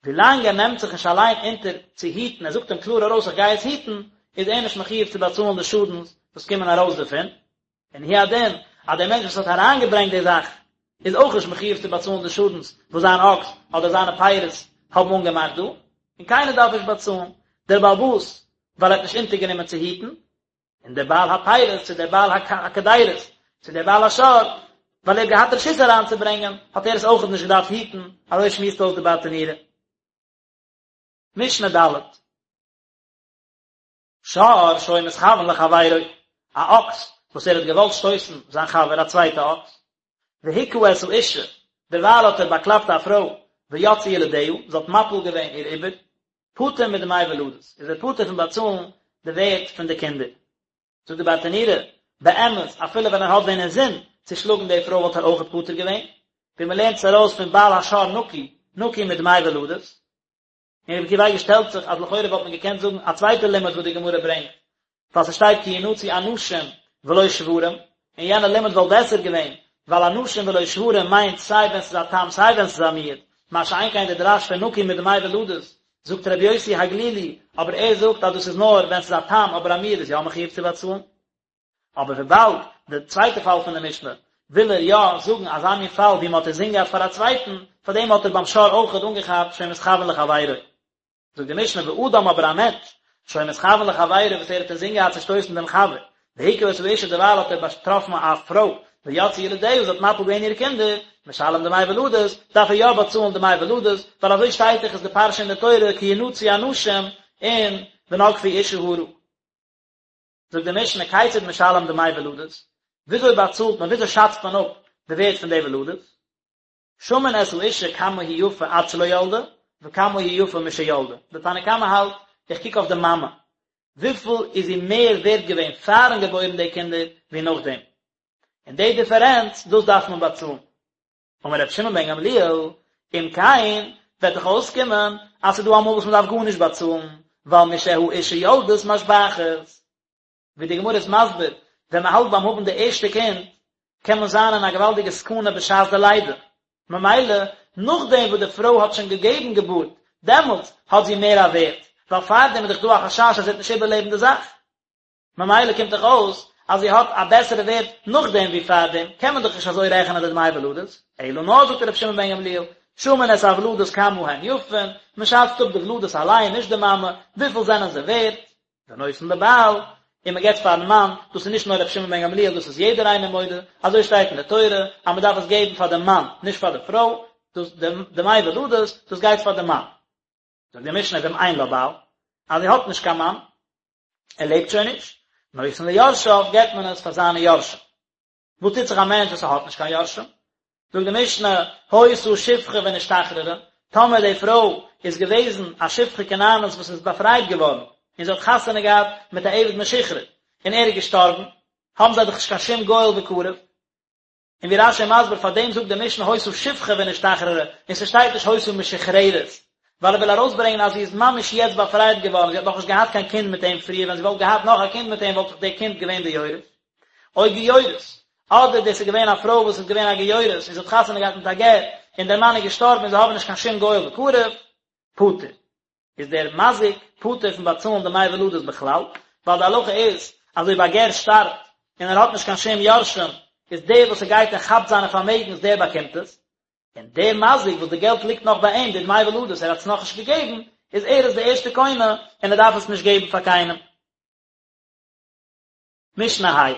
ווילאנג ער נעמט זיך נישט אליין אונטער צו היטן, ער זאגט אים קלאר ארויס איך גיי עס היטן, איז ער נישט מחויב צו באצאלן די שאדנס וואס קומען ארויס דערפון. און הוא הדין, אז דער מענטש וואס האט אריינגעברענגט די זאך, איז אויך נישט מחויב צו באצאלן די שאדנס וואס זיין אקס אדער זיינע פירות האבן אנגעמאכט דא, און קיינער דארף נישט באצאלן, דער בעל הבית ווייל ער האט נישט אונטערגענומען צו היטן, און דער בעל הפירות צו דער בעל הקדירות צו דער בעל השור, ווייל ער האט געהאט רשות אריינצוברענגען, האט ער עס אויכעט נישט געדארפט היטן, אזוי שמועסט אויס די ברטנורא. משנה ד'. שור שהיה מתכוין לחבירו, א אקס וואס ער האט געוואלט שטויסן זיין חבר א צווייטע אקס, והכה את האשה, דערווייל האט ער באקלאפט א פרוי, ויצאו ילדיה, זי האט מפיל געווען איר עובר, פטור מדמי ולדות, איז ער פטור פון באצאלן די ווערט פון די קינדער. זאגט די ברטנורא, באמת, אפילו ווען ער האט ווען אינזין צו שלאגן די פרוי וואלט ער אויכעט פטור געווען, ווי מען לערנט עס ארויס פון בעל השור נקי, נקי מדמי ולדות. און רבי עקיבא אייגער שטעלט זיך אז לכאורה וואלט מען געקענט זאגן א צווייטע לימוד וואס די גמרא ברענגט, ווייל ס'שטייט כי ינצו אנשים ולא שוורים, און יענע לימוד וואלט בעסער געווען, ווייל אנשים ולא שוורים מיינט סיי ווען ס'איז א תם סיי ווען ס'איז א מועד, מה שאין כן די דרש פון נקי מדמי ולדות, זאגט רבי יוסי הגלילי, אבער ער זאגט אז דאס איז נאר ווען ס'איז א תם אבער א מועד איז יא מחויב צו באצאלן. אבער וויבאלד די צווייטע פאל פון די משנה וויל ער יא זאגן אזא מין פאל ווי מען האט אינזין געהאט פאר א צווייטן, פאר דעם האט ער ביים שור אויכעט אנגעכאפט שהיה מתכוין לחבירו. זאגט די משנה ואדם אבער א מענטש שהיה מתכוין לחבירו וואס ער האט אינזין געהאט צו שטויסן דעם חבר, והכה את האשה דערווייל האט ער באטראפן א פרוי, ויצאו ילדיה זי האט מפיל געווען אירע קינדער, משלם דמי ולדות, דארף ער יא באצאלן דמי ולדות, ווייל אזוי שטייט דאך איז די פרשה אין די תורה כי ינצו אנשים און ונגפו אשה הרה. זאגט די משנה כיצד משלם דמי ולדות, וויאזוי באצאלט מען, וויאזוי שאצט מען אפ די ווערט פון די ולדות, שמין את האשה כמה היא יפה עד שלא ילדה, וכמה היא יפה משילדה, די תנא קמא האלט, איך קוק אויף די מאמע, וויפיל איז זי מער ווערט געווען פארן געבוירן די קינדער ווי נאכדעם, און די דיפערענץ, דאס דארף מען באצאלן. אמר רבי שמעון בן גמליאל, אם כן, וועט דאך אויסקומען אז ס'איז דא אמאל וואס מ'דארף גארנישט באצאלן, ווייל משהאשה יולדת משבחת. ווי די גמרא איז מסביר, ווען מ'האלט ביים האבן די ערשטע קינד, קען מען זיין אין א געוואלדיגע סכנה בשעת די לידה. ממילא, נאכדעם וואס די פרוי האט שוין געגעבן געבורט, דעמאלטס האט זי מער א ווערט, ווייל פארדעם איז דאך דא א חשש אז זי וועט נישט איבערלעבן די זאך. ממילא קומט דאך אויס אז זי האט א בעסערע ווערט נאכדעם ווי פארדעם, קען מען דאך נישט אזוי רעכענען די דמי ולדות, אלא נאר זאגט רבי שמעון בן גמליאל, שמין את הוולדות כמה הן יפין, מען שאצט אפ די ולדות אליין נישט די מאמע, וויפיל זענען זיי ווערט, ונותן לבעל, און מען געבט פארן מאן, דאס איז נישט נאר רבי שמעון בן גמליאל דאס איז יעדער איינער מודה, אזוי שטייט אין די תורה אז מען דארף עס געבן פאר דעם מאן, נישט פאר די פרוי, דאס די דמי ולדות, דאס גייט פאר די מאן. זאגט די משנה ואם אין לה בעל, אז זי האט נישט קיין מאן, ער לעבט שוין נישט, נותן ליורשיו געבט מען עס פאר זיינע יורשים. וואס טוט זיך א מענטש וואס ער האט נישט קיין יורשים? זאגט די משנה, היתה שפחה ונשתחררה, טאמער די פרוי איז געוועזן א שפחה כנענית וואס איז באפרייט געווארן, און זי האט חתונה געהאט מיט א עבד משוחרר, און ער איז געשטארבן, האבן זיי דאך נישט קיין שום גואל וקרוב, און ווי רש"י מסביר פאר דעם זאגט די משנה היתה שפחה ונשתחררה און ס'שטייט נישט היתה משוחררת, ווייל ער וויל ארויסברענגען אז זי איז ממש יעצט באפרייט געווארן, זי האט נאכנישט געהאט קיין קינד מיט אים פריער, ווען זי וואלט געהאט נאך א קינד מיט אים וואלט דאך די קינד געווען די יורש. או גיורת, אדער דאס איז געווען א פרוי וואס איז געווען א גיורת און זי האט חתונה געהאט מיט א גר און דער מאן איז געשטארבן און זיי האבן נישט קיין שום גואל וקרוב, פטור. איז דער מזיק פטור פון באצאלן דמי ולדות בכלל, ווייל די הלכה איז אז אויב א גר שטארבט און ער האט נישט קיין שום יורשים, איז דער וואס ער גייט און כאפט זיינע פארמעגנס דער באקומט עס, און דער מזיק וואס די געלט ליגט נאך ביי אים, די דמי ולדות, ער האט עס נאכנישט געגעבן, איז ער איז די ערשטע קונה און ער דארף עס נישט געבן פאר קיינעם. משנה ה'.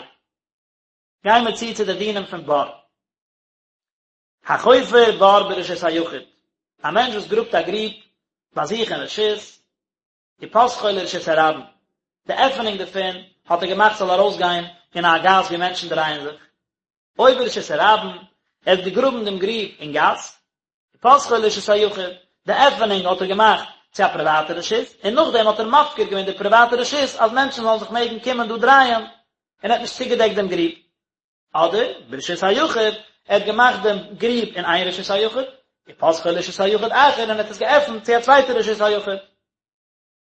גייען מיר צו צו די דינים פון בור. החופר בור ברשות היחיד, א מענטש וואס גראבט א גריב ביי זיך אין רשות, ופתחו לרשות הרבים, די עפענונג דערפון האט ער געמאכט ס'זאל ארויסגיין אין א גאס וואו מענטשן דרייען זיך, או ברשות הרבים, ער האט געגראבן דעם גריב אין גאס, ופתחו לרשות היחיד, די עפענונג האט ער געמאכט צו א פריוואטע רשות, און נאכדעם האט ער מפקיר געווען די פריוואטע רשות אז מענטשן זאלן זיך מעגן קומען דא דרייען, און ער האט נישט צוגעדעקט דעם גריב. אדער, ברשות היחיד, ער האט געמאכט דעם גריב אין איין רשות היחיד, ופתחו לרשות היחיד אחר, און ער האט עס געעפנט צו א צווייטע רשות היחיד.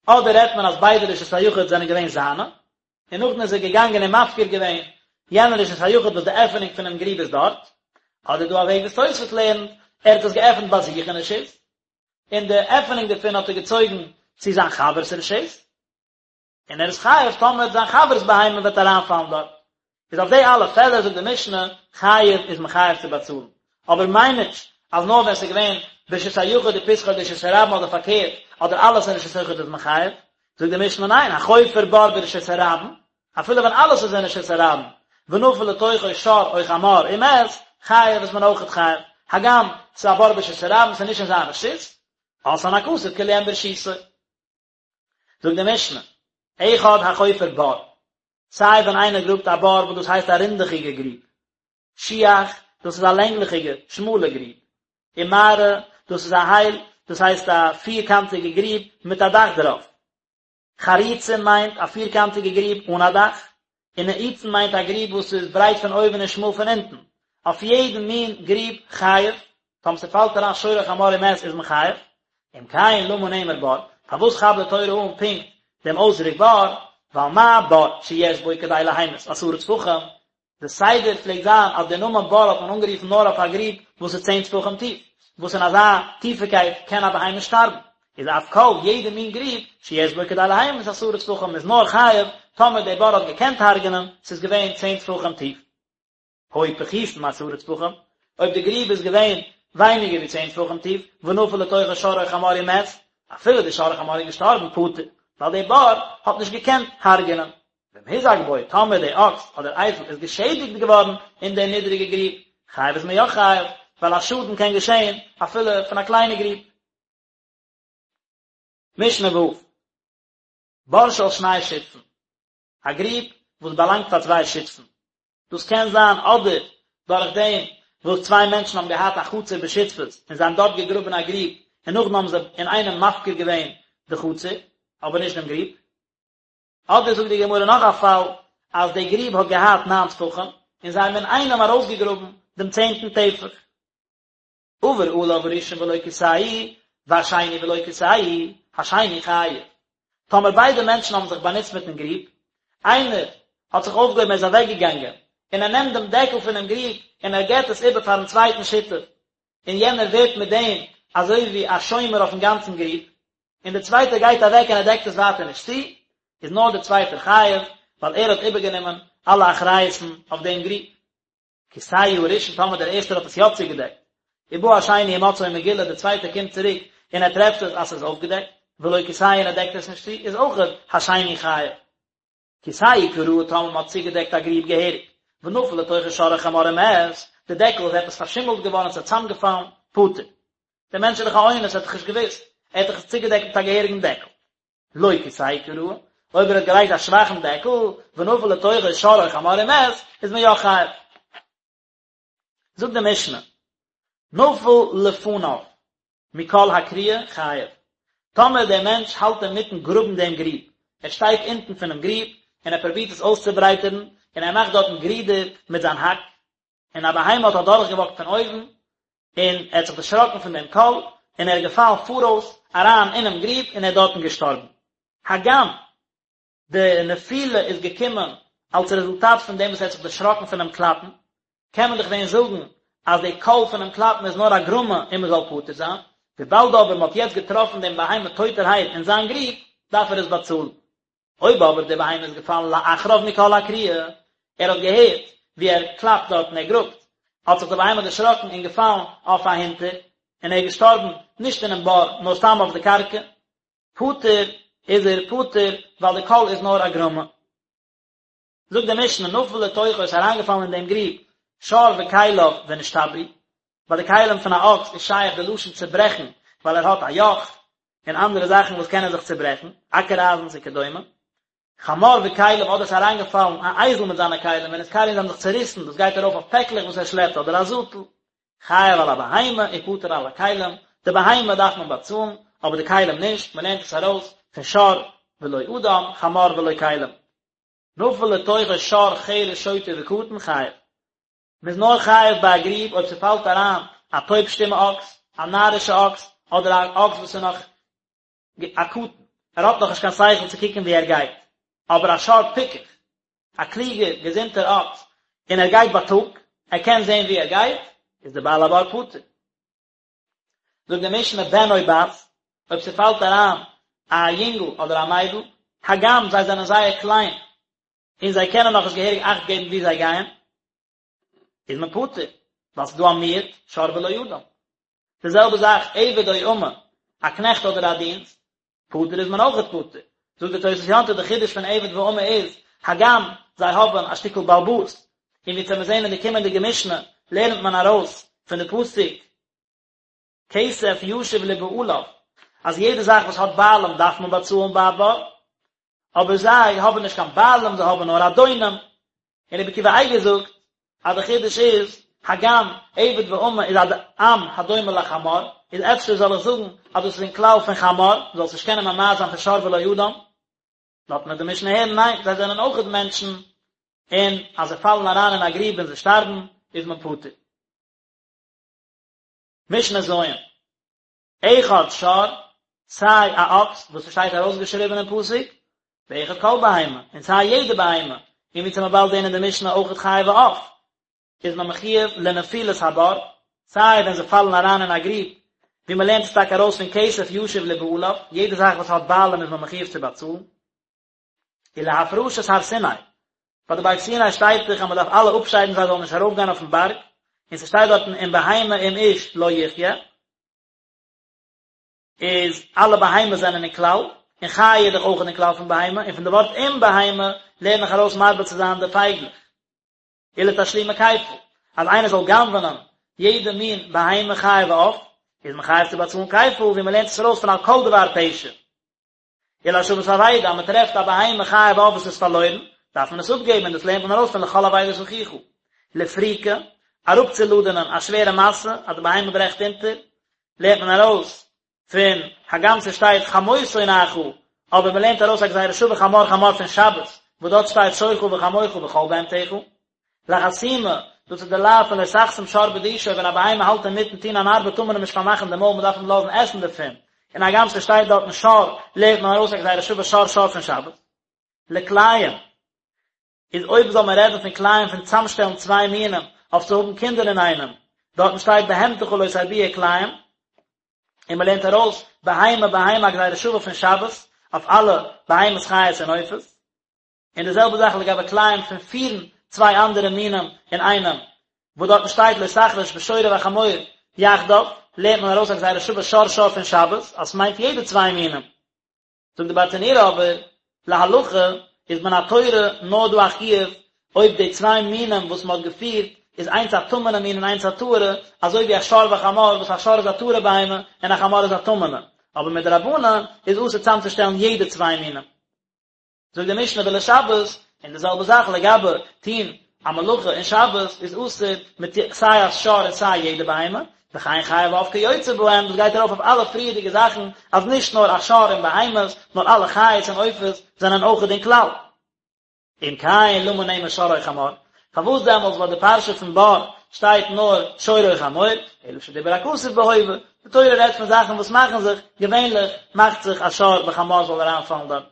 אדער רעדט מען אז ביידע רשות היחיד זענען געווען זיינע, און נאכדעם איז ער געגאנגען און מפקיר געווען יענע רשות היחיד וואס די עפענונג פונעם גריב איז דארט, אדער דא א וועג וואס תוספות לערנט, ער האט עס געעפנט ביי זיך אין רשות, און די עפענונג דערפון האט ער געצויגן צו זיין חבר'ס רשות. און ער איז חייב טאמער זיין חבר'ס בהמה וועט אריינפאלן דארט. איז אויף די אלע פעלער זאגט די משנה, חייב איז מען חייב צו באצאלן. אבער מיין נישט אז נאר ווען ס'איז געווען ברשות היחיד ופתחו לרשות הרבים אדער פארקערט, אדער אלעס אין רשות היחיד איז מען חייב. זאגט די משנה ניין, החופר בור ברשות הרבים, אפילו ווען אלעס איז אין רשות הרבים, ונפל לתוכו שור או חמור ומת, חייב איז מען אויכעט חייב. הגם ס'איז א בור ברשות הרבים, ס'איז נישט אין זיין רשות, עשאן הכתוב כאילו הן ברשותו. זאגט די משנה, אחד החופר בור, סיי ווען איינער גראבט א בור וואס דאס הייסט א רינדעכיגע גריב, שיח, דאס איז א לענגליכיגע, שמאלע גריב, ומערה, דאס איז א הייל, דאס הייסט א פירקאנטיגע גריב מיט א דאך דערויף. חריצים מיינט א פירקאנטיגע גריב אן א דאך, און נעיצין מיינט א גריב וואס איז ברייט פון אויבן און שמאל פון אונטן. אויף יעדן מין גריב חייב, טאמער ס'פאלט אריין שור או חמור ומת איז מען חייב. אם כן למה נאמר בור, פארוואס כאפט די תורה אן פונקט דעם אויסדרוק בור, ווייל מה בור שיש בו כדי להמית עשרה טפחים, די סדר פלעגט זיין אז די נאמען בור האט מען אנגערופן נאר אויף א גריב וואס איז צען טפחים טיף, וואס אין אזא טיפיקייט קען א בהמה שטארבן, איז אף כל יעדע מין גריב שיש בו כדי להמית עשרה טפחים איז נאר חייב טאמער די בור האט געקענט הרג'נען, ס'איז געווען צען טפחים טיף. היו פחותין מעשרה טפחים, אויב די גריב איז געווען ווייניגער ווי צען טפחים טיף, ונפל לתוכו שור או חמור ומת, אפילו די שור או חמור איז געשטארבן פטור, ווייל די בור האט נישט געקענט הרג'נען. ואם הוזק בו, טאמער די אקס אדער אייזל איז געשעדיגט געווארן אין די נידריגע גריב, חייב איז מען יא חייב, ווייל א שאדן קען געשען אפילו פון א קליינע גריב. משנה ו', בור של שני שותפין, א גריב וואס באלאנגט פאר צוויי שותפין, דאס קען זיין אדער דורך דעם וואס צוויי מענטשן האבן געהאט א חצר בשותפות און זיי האבן דארט געגראבן א גריב און נאכדעם האבן זיי אינאיינעם מפקיר געווען די חצר אבער נישט דעם גריב, אדער זאגט די גמרא נאך א פאל אז די גריב האט געהאט ניין טפחים און זיי האבן אינאיינעם ארויסגעגראבן דעם צענטן טפח. עבר עליו הראשון ולא כסהו, והשני ולא כסהו, השני חייב. טאמער ביידע מענטשן האבן זיך באנוצט מיטן גריב, איינער האט זיך אויפגעהויבן ער איז אוועקגעגאנגען, און ער נעמט דעם דעקל פונעם גריב און ער געבט עס איבער פארן צווייטן שותף, און יענער ווערט מיט דעם אזוי ווי א שומר אויפן גאנצן גריב, און דער צווייטער גייט אוועק און ער דעקט עס ווייטער נישט צו, איז נאר דער צווייטער חייב, ווייל ער האט איבערגענומען אלע אחריות'ן אויף דעם גריב. כסהו הראשון טאמער דער ערשטער האט עס יא צוגעדעקט, ובא השני ומצאו מגולה דער צווייטער קומט צוריק און ער טרעפט עס אז ס'איז אויפגעדעקט, ולא כסהו און ער דעקט עס נישט צו, איז אויכעט השני חייב. כסהו כראוי טאמער מ'האט צוגעדעקט א גריב געהעריג, ונפל לתוכו שור או חמור ומת, די דעקל איז עפעס פארשימלט געווארן און ס'איז צוזאמגעפאלן, פטור. דער מענטש איז דאך א אונס, ער האט דאך נישט געוואוסט, ער האט דאך עס צוגעדעקט מיט א געהעריגן דעקל. לא כסהו כראוי, אויב ער האט געלייגט א שוואכן דעקל, ונפל לתוכו שור או חמור ומת, איז מען יא חייב. זאגט די משנה, נפל לפניו מקול הכרייה חייב, טאמער דער מענטש האלט אינמיטן גראבן דעם גריב, ער שטייט אונטן פונעם גריב און ער פרובירט עס אויסצוברייטערן, און ער מאכט דארטן גרידער מיט זיין האק, און א בהמה האט אדורכגעוואקט פון אויבן, און ער האט זיך דערשראקן פון דעם קול, און ער איז געפאלן פאראויס אריין אינעם גריב און ער איז דארטן געשטארבן. הגם די נפילה איז געקומען אלס רעזולטאט פון דעם וואס ער האט זיך דערשראקן פונעם קלאפן, קען מען דאך ווען זאגן אז די קול פונעם קלאפן איז נאר א גרמא און מען זאל פטור זיין, וויבאלד אבער מען האט יעצט געטראפן דעם בהמה טויטערהייט אין זיין גריב, דארף ער עס באצאלן. אויב אבער די בהמה איז געפאלן לאחריו מקול הכרייה, ער האט געהערט ווי ער קלאפט דארט און ער גראבט, האט זיך די בהמה דערשראקן און געפאלן אויף אהינטער, און ער איז געשטארבן נישט אינעם בור נאר סתם אויף די קרקע, פטור איז ער פטור ווייל די קול איז נאר א גרמא. זאגט די משנה נפל לתוכו איז אריינגעפאלן אין דעם גריב שור וכליו ונשתברו, ביי די כלים פון א אקס איז שייך די לשון צוברעכן ווייל ער האט א יאך און אנדערע זאכן וואס קענען זיך צוברעכן, אקער אייזנס וכדומה. חמור וכליו אדער ס'איז אריינגעפאלן א אייזל מיט זיינע כלים ונתקרעו און זיי האבן זיך צוריסן, דאס גייט ארויף אויף פעקלעך וואס ער שלעפט אדער א זאטל. חייב על הבהמה ופטור על הכלים, די בהמה דארף מען באצאלן, אבער די כלים נישט, מען לערנט עס ארויס פון שור ולא אדם, חמור ולא כלים. נפל לתוכו שור חרש שוטה וקטן חייב. מען איז נאר חייב ביי א גריב אויב ס'פאלט אריין א טויב שטומע אקס, א נארישע אקס, אדער א אקס וואס איז נאך א קטן, ער האט נאכנישט קיין שכל צו קוקן וואו ער גייט, אבער א שור פיקח, א קלוגער געזונטער אקס, און ער גייט בייטאג, ער קען זען וואו ער גייט, איז דער בעל הבור פטור. זאגט די משנה בן או בת, אויב ס'פאלט אריין א יונגל אדער א מיידל, הגם זיי זענען זייער קליין, און זיי קענען נאכנישט געהעריג אכט געבן וואו זיי גייען, איז מען פטור, ווייל ס'איז דא א מיעוט, שור ולא אדם. די זעלבע זאך עבד או אמה, א קנעכט אדער א דינסט, פטור איז מען אויכעט פטור. זאגט די תוס' יום טוב די חידוש פון עבד ואמה איז, הגם זיי האבן א שטיקל בעלבאס, און ווי מיר זעהן אין די קומענדיגע משנה לערנט מען ארויס פון די פסוק כסף ישיב לבעליו, אז יעדע זאך וואס האט בעלים דארף מען באצאלן ביי א בור, אבער זיי האבן נישט קיין בעלים זיי האבן נאר אדונים, און רבי עקיבא אייגער זאגט אז די חידוש איז, הגם עבד ואמה איז א עם הדומה לחמור, איז אפשר זאל איך זאגן אז דאס איז אין כלל פון חמור, זאלסט נישט קענען ממעט זיין פון שור ולא אדם, לאזט מיר די משנה הערן ניין, זיי זענען אויכעט מענטשן, און אז זיי פאלן אריין אין א גריב און זיי שטארבן, איז מען פטור. משנה ז'. אחד שור, סיי א אקס וואס ס'שטייט ארויסגעשריבען אין פסוק, ואחד כל בהמה, און סיי יעדע בהמה, און ווי מ'וועט באלד זעהן אין די משנה אויכעט חיה ועוף, איז מען מחיוב לנפילת הבור, סיי ווען זיי פאלן אריין אין א גריב, ווי מ'לערנט עס טאקע ארויס פון כסף ישיב לבעליו, יעדע זאך וואס האט בעלים איז מען מחיוב צו באצאלן. ולהפרשת הר סיני, ביי די בארג סיני שטייט דאך אז מען דארף אלע אפשיידן זיי זאלן נישט ארויפגיין אויפן בארג, און ס'שטייט דארטן אם בהמה אם איש לא יחיה, איז אלע בהמות זענען אין כלל, און חיה איז דאך אויך אין כלל פון בהמה, און פון די ווארט אם בהמה לערן איך ארויס מרבה צו זיין די פייגלעך. ולתשלומי כפל, אז איינער זאל גנב'נען יעדע מין בהמה חיה ועוף, איז מען חייב צו באצאלן כפל, ווי מען לערנט עס ארויס פון על כל דבר פשע. ולהשבת אבידה, אז מען טרעפט א בהמה חיה ועוף וואס איז פארלוירן, דארף מען עס אפגעבן און דאס לערנט מען ארויס פון לכל אבידת אחיך. לפריקה, אראפצולאדענען א שווערע משא, אז די בהמה ברעכט אונטער, לערנט מען ארויס פון הגם ס'שטייט חמור שונאך, אבער מען לערנט ארויס א גזירה שווה חמור חמור פון שבת, וואס דארט שטייט שורך וחמורך וכל בהמתך. לחסימה, דאס איז די לאו פון לא תחסום שור בדישו, ווען א בהמה האלט אינמיטן טון אן ארבעט טאר מען אים נישט פארמאכן די מויל, מען דארף אים לאזן עסן דערפון, און הגם ס'שטייט דארטן שור, לערנט מען ארויס א גזירה שווה שור שור פון שבת. לכלאים, איז אויב זאל מען רעדן פון כלאים פון צאמשטעלן צוויי מינים אויף צו האבן קינדער אינאיינעם, דארטן שטייט בהמתך לא תרביע כלאים, און מען לערנט ארויס בהמה בהמה א גזירה שווה פון שבת אויף אלע בהמות חיות און עופות. און די זעלבע זאך לגבי כלאים פון פירן צוויי אנדערע מינים אינאיינעם, וואס דארטן שטייט לא תחרוש בשור ובחמור יחדיו, לערנט מען ארויס א גזירה שווה שור שור פון שבת, אז ס'מיינט יעדע צוויי מינים. זאגט די ברטנורא אבער, להלכה איז מן התורה נאר דא א חיוב אויב די צוויי מינים וואס מ'האט געפירט איז איינס א טמא'נע מין און איינס א טהור'ע, אזוי ווי א שור וחמור וואס א שור איז א טהור'ע בהמה און א חמור איז א טמא'נע, אבער מדרבנן איז אסור צאמצושטעלן יעדע צוויי מינים. זאגט די משנה ולשבת, און די זעלבע זאך לגבי טוהן א מלאכה אין שבת איז אסור מיט סיי א שור און סיי יעדע בהמה, וכן חיה ועוף כיוצא בהם, דאס גייט ארויף אויף אלע פריערדיגע זאכן אז נישט נאר א שור און בהמות, נאר אלע חיות און עופות זענען אויכעט אין כלל. אם כן למה נאמר שור או חמור, פארוואס דעמאלטס ביי די פרשה פון בור שטייט נאר שור או חמור, אלא שדיבר הכתוב בהווה, די תורה רעדט פון זאכן וואס מאכן זיך, געווענליך מאכט זיך א שור וחמור זאל אריינפאלן דארט.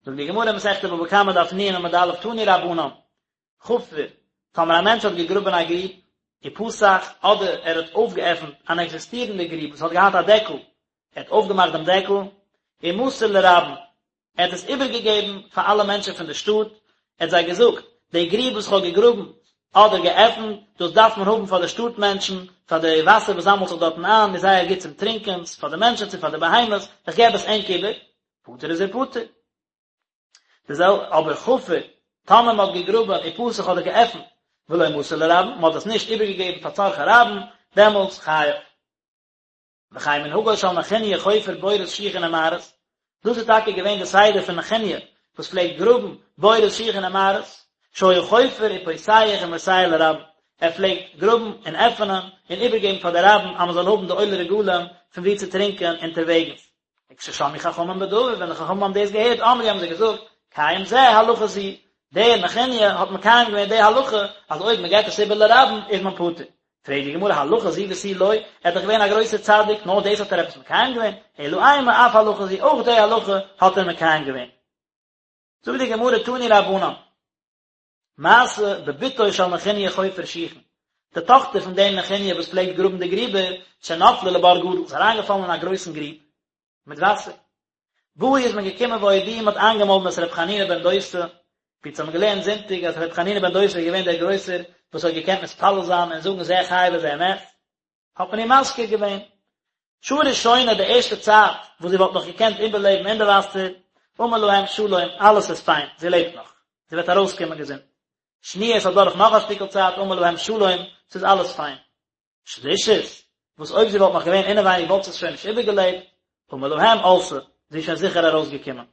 זאגט די גמרא אין מסכת בבא קמא דף נ עמוד א' תנו רבנן, חפר, טאמער א מענטש האט געגראבען א גריב, ופתח, אדער ער האט אויפגעעפנט אן עקזיסטירענדע גריב וואס האט געהאט א דעקל, ער האט אויפגעמאכט דעם דעקל, ומסר לרבים, ער האט עס איבערגעגעבן פאר אלע מענטשן פון די שטאט, ער האט זיי געזאגט, די גריב וואס איך האב געגראבן אדער געעפנט, דאס דארף מען האבן פאר די שטאט מענטשן, פאר די וואסער וואס זאמלט זיך דארטן איין, איז זייער גוט צום טרינקען, פאר די מענטשן צו פאר די בהמות, איך געב עס ענק איבער, פטור איז ער פטור. די זעלבע אבער חפר, טאמער מען האט געגראבען ופתח אדער געעפנט ולא מסר לרבים, מען האט עס נישט איבערגעגעבן פאר צרכי רבים, דעמאלטס חייב. וכן מנהגו של נחוניא חופר בורות שיחין ומערות, דאס איז טאקע געווען די סדר פון נחוניא וואס פלעגט גראבן בורות שיחין ומערות, שהיה חופר ופותח ומוסר לרבים, ער פלעגט גראבן און עפענען און איבערגעבן פאר די רבים אז מען זאל האבן די עולי רגלים פון וואו צו טרינקען אונטערוועגנס. וכששמעו חכמים בדבר, ווען די חכמים האבן דאס געהערט, אמרו האבן זיי געזאגט, קיים זה הלכה זו, דער נחוניא האט מקיים געווען די הלכה אז אויב מען געבט עס איבער לרבים איז מען פטור. פרעגט די גמרא הלכה זו ותו לא, ער איז דאך געווען א גרויסער צדיק, נאר דאס האט ער עפעס מקיים געווען? אלא אימא אף הלכה זו, אויך די הלכה האט ער מקיים געווען. זאגט די גמרא תנו רבנן, מעשה בבתו של נחוניא חופר שיחין, די טאכטער פון דעם נחוניא וואס פלעגט גראבן די גריבער, שנפלה לבור גדול, איז אריינגעפאלן אין א גרויסן גריב מיט וואסער. באו איז מען געקומען והודיעו מ'האט איינגעמאלדן את ר' חנינא בן דוסא, ווי אונז האבן געלערנט זונטאג אז ר' חנינא בן דוסא איז געווען דער גרויסער וואס האט געקענט מתפלל זיין און זאגן זה חי וזה מת, האט מען אים מזכיר געווען. שעה ראשונה די ערשטע צייט וואס זי וואלט נאך געקענט איבערלעבן אין די וואסער, אמר להם שלום, אלעס איז פיין, זי לעבט נאך, זי וועט ארויסקומען געזונט. שניה עס איז אדורך נאך א שטיקל צייט, אמר להם שלום, ס'איז אלעס פיין. שלישית, וואס אויב זי וואלט נאך געווען אינעווייניג וואלט זי עס שוין נישט איבערגעלעבט, אמר להם עלתה, זי איז שוין זיכער ארויסגעקומען.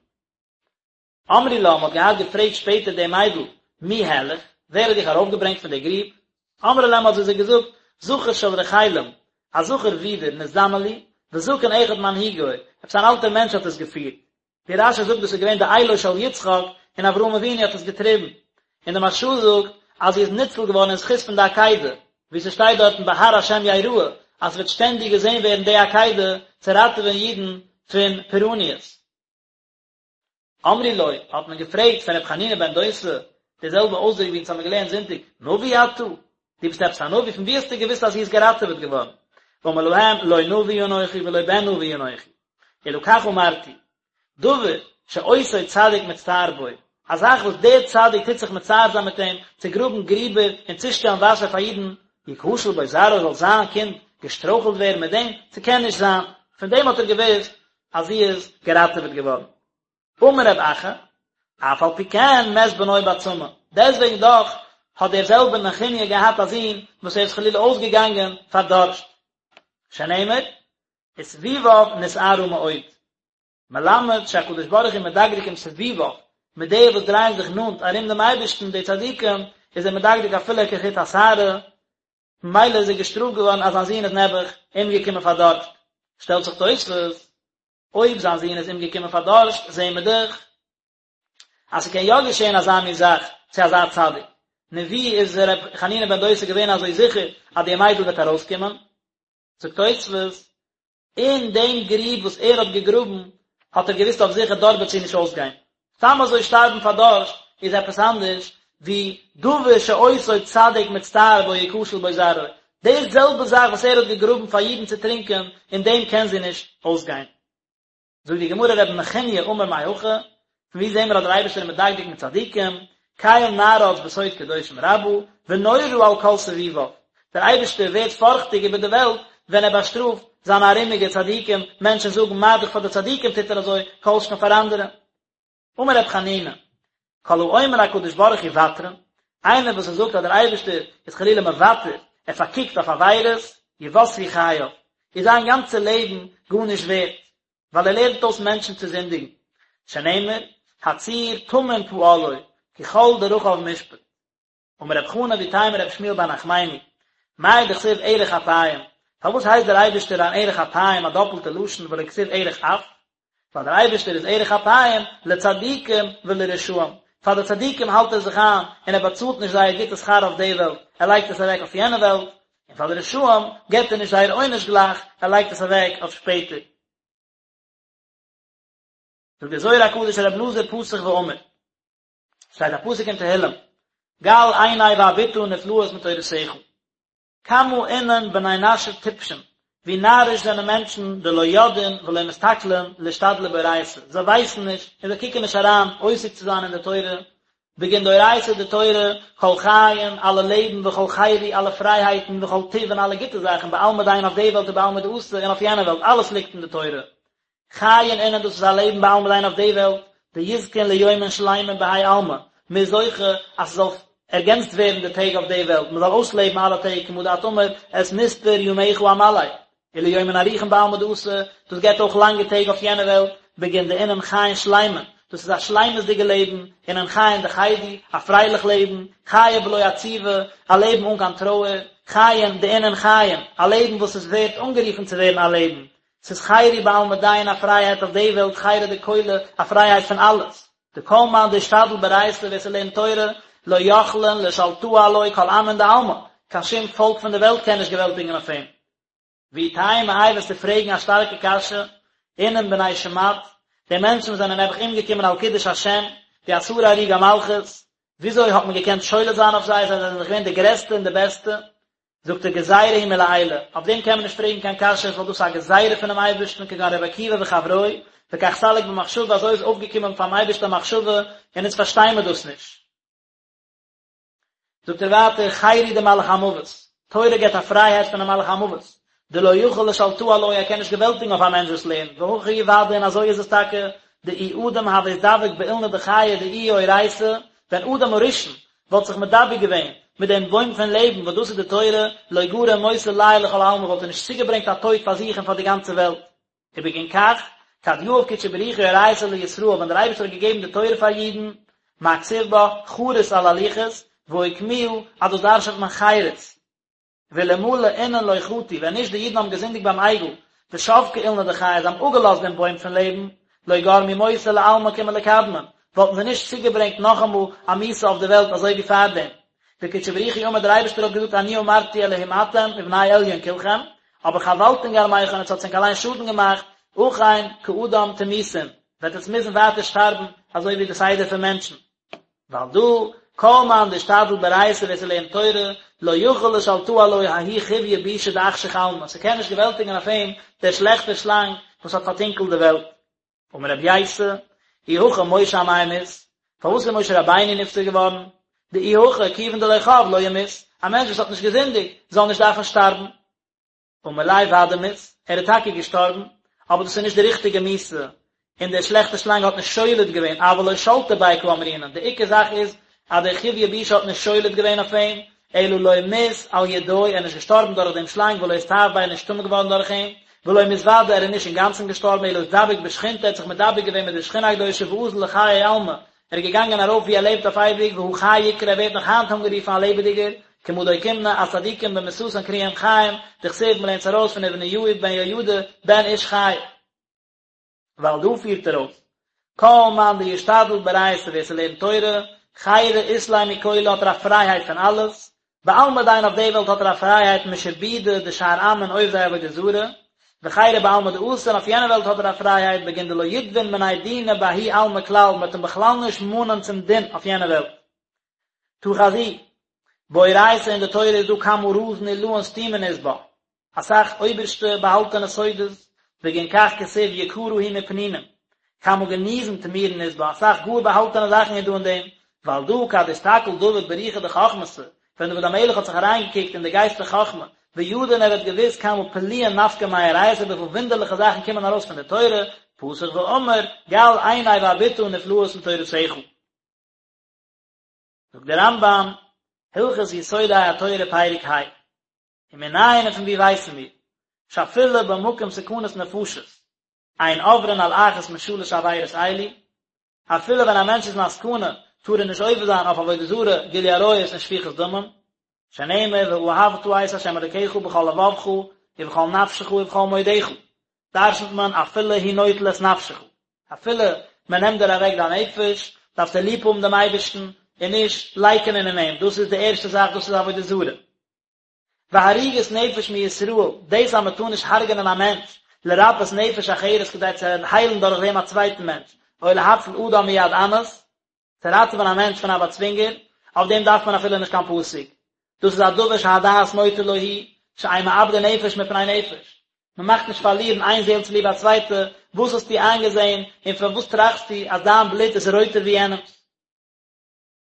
אמרו לה, מ'האט געהאט געפרעגט שפעטער די מיידל, מי העלך, ווער האט דיך ארויפגעברענגט פון די גריב? אמרה להם האט זי זיי געזאגט, זכר של רחלים, א זכר ווידער, נזדמן לי, וזקן אחד מנהיגו, עפעס אן אלטער מענטש האט עס געפירט. ווי רש"י זאגט דאס איז געווען די אילו של יצחק, און אברהם אבינו האט עס געטריבן. און די מהרש"א זאגט אז זי איז ניצול געווארן אין זכות פון די עקידה, ווי ס'שטייט דארטן בהר השם יראה, אז ס'וועט שטענדיג געזען ווערן די עקידה צו ראטעווען אידן פון פורעניות. אמרו לו, האט מען געפרעגט פון רבי חנינא בן דוסא, די זעלבע אויסדרוק ווי אונז האבן געלערנט זונטאג, נביא אתה? דו ביסט עפעס א נביא? פון וואו האסטו געוואוסט אז זי איז געראטעוועט געווארן? אמר להם, לא נביא אנכי ולא בן נביא אנכי, אלא כך אמרתי, דבר שאותו צדיק מצטער בו, א זאך וואס דער צדיק טוט זיך מצער זיין מיט אים, צו גראבן גריבער און צושטעלן וואסער פאר אידן, יכשל בו זרעו זאל זיין קינד געשטרויכלט ווערן מיט דעם? ס'קען נישט זיין. פון דעם האט ער געוואוסט אז זי איז געראטעוועט געווארן. אמר רב אחא, אף על פי כן מת בנו בצמא, דעסטוועגן דאך האט דער זעלבער נחוניא געהאט א זון וואס ער איז חלילה אויסגעגאנגען פאר דארשט, שנאמר, וסביביו נשערה מאוד. מלמד שהקדוש ברוך הוא מדקדק עם סביביו, מיט די וואס דרייען זיך נאנט ארום דעם אייבערשטן, די צדיקים, איז ער מדקדק אפילו כחוט השערה, ממילא איז ער געשטראפט געווארן אז זיין זון איז נעבעך אומגעקומען פאר דארשט. שטעלט זיך תוספות, אויב זיין זון איז אומגעקומען פאר דארשט, זעהן מיר דאך אז ס'קען יא געשעהן אזא מין זאך צו אזא צדיק. נו ווי איז ר' חנינא בן דוסא געווען אזוי זיכער אז די מיידל וועט ארויסקומען? זאגט תוספות, אין דעם גריב וואס ער האט געגראבן האט ער געוואוסט אויף זיכער דארט וועט זי נישט אויסגיין. סתם אזוי שטארבן פאר דארשט איז עפעס אנדערש ווי דבר שאותו צדיק מצטער בו יכשל בו זרעו. די זעלבע זאך וואס ער האט געגראבן פאר אידן צו טרינקען, אין דעם קען זי נישט אויסגיין. זאגט די גמרא רבי נחוניא אמר מהכא, פון וואו זעהן מיר אז דער אייבערשטער איז מדקדק מיט צדיקים, קל נערץ בסוד קדושים רבה, ונורא על כל סביביו, דער אייבערשטער ווערט פארכטיג איבער די וועלט ווען ער באשטראפט זיינע ארומיגע צדיקים, מענטשן זאגן מה דאך פאר די צדיקים טוט ער אזוי, כל שכן פאר אנדערע. אמר רבי חנינא, כל האומר הקדוש ברוך הוא ותרן, איינער וואס ער זאגט אז דער אייבערשטער איז חלילה מוותר, ער פארקוקט אויף עבירות, יותרו חייו, איז זיין גאנצע לעבן גארנישט ווערט, ווייל ער לערנט אויס מענטשן צו זינדיגן, שנאמר, הצור תמים פעלו, כי כל דרכיו משפט. אמר רב חנא ואיתימא רב שמואל בר נחמני, מאי דכתיב ארך אפים, פארוואס הייסט דער אייבערשטער אן ארך אפים א דאפלטע לשון ולא כתיב ארך אף? ווייל דער אייבערשטער איז ארך אפים לצדיקים ולרשעים, פאר די צדיקים האלט ער זיך איין און ער באצאלט נישט זייער גוטע שכר אויף די וועלט, ער לייגט עס אוועק אויף יענע וועלט, און פאר די רשעים געבט ער נישט זייער עונש גלייך, ער לייגט עס אוועק אויף שפעטער. זאגט דער זוהר הקדוש רבי אלעזר פתח ואמר. שטייט א פסוק אין תהילים, גל עיני ואביטה נפלאות מתורתך. כמה אינון בני נשא טיפשין, ווי נאריש זענען מענטשן דלא ידעין ולא מסתכלין לאשתדלא באורייתא, זיי ווייסן נישט און זיי קוקן נישט אריין עוסק צו זיין אין די תורה, בגין דאורייתא די תורה, כל חיין, אלע לעבן, וכל חירו, אלע פרייהייטן, וכל טיב און אלע גוטע זאכן, בעלמא דין אויף די וועלט ובעלמא דאתי און אויף יענע וועלט, אלעס ליגט אין די תורה. חיין אינון דאס איז א לעבן בעלמא דין אויף די וועלט, דיזכון ליומין שלימין בהאי עלמא, מען איז זוכה אז ס'זאל ערגענצט ווערן די טעג אויף די וועלט, מען זאל אויסלעבן אלע טעג כמה דאת אמר את מספר ימיך אמלא, וליומין אריכין בעלמא דאתי, דאס געבט אויך לאנגע טעג אויף יענע וועלט, בגין דאינון חיין שלימין, דאס איז א שלימות'דיגע לעבן, אינון חיין דחידו, א פרייליך לעבן, חיי בלא עציבא, א לעבן אן קיין טרויער, חיין דאינון חיים, א לעבן וואס איז ווערט אנגערופן צו ווערן א לעבן, ס'איז חירו בעלמא דין א פרייהייט אויף די וועלט חירא דכולא א פרייהייט פון אלעס, דכל מאן דאשתדל באורייתא ווער ס'לערנט תורה לא יכלין לשלטאה עלוי כל עמין דעלמא, קיין שום פאלק פון די וועלט קען נישט געוועלטיגן אויף אים. ואי תימא איי וועסטו פרעגן א שטארקע קשיא, אינון בני שמד, די מענטשן וואס זענען נעבעך אומגעקומען על קידוש השם, די עשרה הרוגי מלכות, וויאזוי האט מען געקענט שולט זיין אויף זיי, זיי זענען דאך געווען די גרעסטע און די בעסטע, זאגט ער גזירה היא מלעילא, אויף דעם קען מען נישט פרעגן קיין קשיות ווייל דאס איז א גזירה פונעם אייבערשטן כגון רבי עקיבא וחברוהי, וכך סליק במחשבה אזוי איז אויפגעקומען פארן אייבערשטן א מחשבה און אונז פארשטיי מיר דאס נישט. זאגט ער ווייטער חירו דמלאך המוות, תורה געבט א פרייהייט פונעם מלאך המוות, דלא יכיל לשלטאה עלוי ער קען נישט געוועלטיגן אויף א מענטש וואס לערנט, והכי הוא ודאי און אזוי איז עס טאקע, דאי אדם הוה אתדבק באילנא דחיי דאיהי אורייתא, ווען אדם הראשון וואלט זיך מדבק געווען מיט דעם בוים פון לעבן וואס דאס איז די תורה, לא גרים מותא ליה ולכל עלמא וואלט ער נישט צוגעברענגט א טויט פאר זיך און פאר די גאנצע וועלט. ובגין כך, כד יהב קודשא בריך הוא אורייתא לישראל ווען דער אייבערשטער האט געגעבן די תורה פאר אידן, מה כתיב בה, חרות על הלוחות, ואוקמוה, אז דאס דרש'נט מען חירות. ואלמלא אינון לא חטו, ווען נישט די אידן האבן געזינדיגט ביים עגל, ושבקו אילנא דחיי, זיי האבן אפגעלאזט דעם בוים פון לעבן, לא גרמו מותא לעלמא כמלקדמין, וואלטן זיי נישט צוגעברענגט נאכאמאל א מיתה אויף די וועלט אזוי ווי פארדעם. וקודשא בריך הוא אמר דער אייבערשטער האט געזאגט אני אמרתי אלהים אתם ובני עליון כלכם, אבער חבלתון גרמיכון עטס האטס ענק אליין שאדן געמאכט, אכן כאדם תמותון, וועט עטס מוזן ווייטער שטארבן אזוי ווי די סדר פון מענטשן. ועל דא, כל מאן דאשתדל באורייתא ווער ס'לערנט תורה, לא יכיל לשלטאה עלוי ההוא חויא בישא דאחשיך עלמא, ס'קען נישט געוועלטיגן אויף אים דער שלעכטער שלאנג וואס האט פארטונקלט די וועלט. אמר רבי ייסא, אי הכי משה אמאי מית, פארוואס איז משה רבינו נפטר געווארן? דאי הכי כיוון דלא חב לא ימות, א מענטש וואס האט נישט געזינדיגט זאל נישט דארפן שטארבן. אמר ליה ודאי מית, ער איז טאקע געשטארבן, אבער דאס איז נישט די ריכטיגע מיתה, און דער שלעכטער שלאנג האט נישט שולט געווען, אבל לא שלטא ביה קאמרינן, די עיקר זאך איז אז דער חויא בישא האט נישט שולט געווען אויף אים, אלא לא מית על ידוי, ער איז נישט געשטארבן דורך דעם שלאנג ולא אסתאב ביה, ער איז נישט טמא געווארן דורך אים, ולא מית ודאי, ער איז נישט אינגאנצן געשטארבן, אלא אתדבק בשכינתא, ער האט זיך מדבק געווען מיט די שכינה הקדושה ואזל לחיי עלמא, ער איז געגאנגען ארויף וואו ער לעבט אויף אייביג, והא חי יקרי, ער ווערט נאך היינט אנגערופן א לעבעדיגער, כמה דאוקימנא, אז צדיקים במיתתן קרויים חיים, דכתיב מ'לערנט עס ארויס פון ובניהו בן יהוידע בן איש חי. ועל דא פירט ער אויס, כל מאן דישתדל באורייתא ווער ס'לערנט תורה, חירא אית ליה מכולא האט ער א פרייהייט פון אלעס, בעלמא דין אויף די וועלט האט ער א פרייהייט משעבודא דשאר עמין עובדי עבודה זרה, וחירא בעלמא דאתי און אויף יענע וועלט האט ער א פרייהייט בגין דלא יתבון מיניה דינא בההוא עלמא כלל מ'וועט אים בכלל נישט מאנען צום דין אויף יענע וועלט. תא חזי, באורייתא אין די תורה איז דא כמה רזין עילאין סתימין אית בה, אסאך אויבערשטע באהאלטענע סודות, בגין כך כתיב יקרה היא מפנינים, כמה גניזין טמירין אית בה, אסאך גאר באהאלטענע זאכן איז דא אין דעם, ועל דא כד אסתכל דוד ברוחא דחכמתא, ווען דוד המלך האט זיך אריינגעקוקט אין די גייסט פון חכמה, וידע און ער האט געוואוסט כמה פליאין נפקי מאורייתא וויפיל וואונדערליכע זאכן קומען ארויס פון די תורה, פתח ואמר, גל עיני ואביטה נפלאות מתורתך. זאגט דער רמב"ם, הלכות יסודי התורה פרק ה, ומנין און פון וואו ווייסן מיר, שאפילו במקום סכנת נפשות, אין עוברין על אחת משלש עבירות אלו, אפילו ווען א מענטש איז אין א סכנה, טאר ער נישט עובר זיין אויף עבודה זרה, גילוי עריות און שפיכות דמים, שנאמר ואהבת את ה' אלוקיך בכל לבבך ובכל נפשך ובכל מאודך, דרשנ'ט מען אפילו הוא נוטל את נפשך, אפילו מען נעמט דיר אוועק דיין נפש, דארפסטו ליב האבן דעם אייבערשטן און נישט לייקענען אין אים, דאס איז די ערשטע זאך, דאס איז עבודה זרה. והריגת נפש מישראל, דאס אז מען טאר נישט הרג'נען א מענטש, לרפאות נפש אחרת כדי צו היילן דורך דעם א צווייטן מענטש, או להציל אדם מיד אנס, צו ראטעווען א מענטש פון א באצווינגער, אויף דעם דארף מען אפילו נישט קיין פסוק. דאס איז א דבר שהדעת נוטה לו הוא, שאין מאבדין נפש מפני נפש. מען מאכט נישט פארלירן איין זעהל צוליב א צווייטע, וואס האסטו איינגעזעהן און פארוואס טראכסטו אז דיין בלוט איז רויטער ווי יענעמ'ס?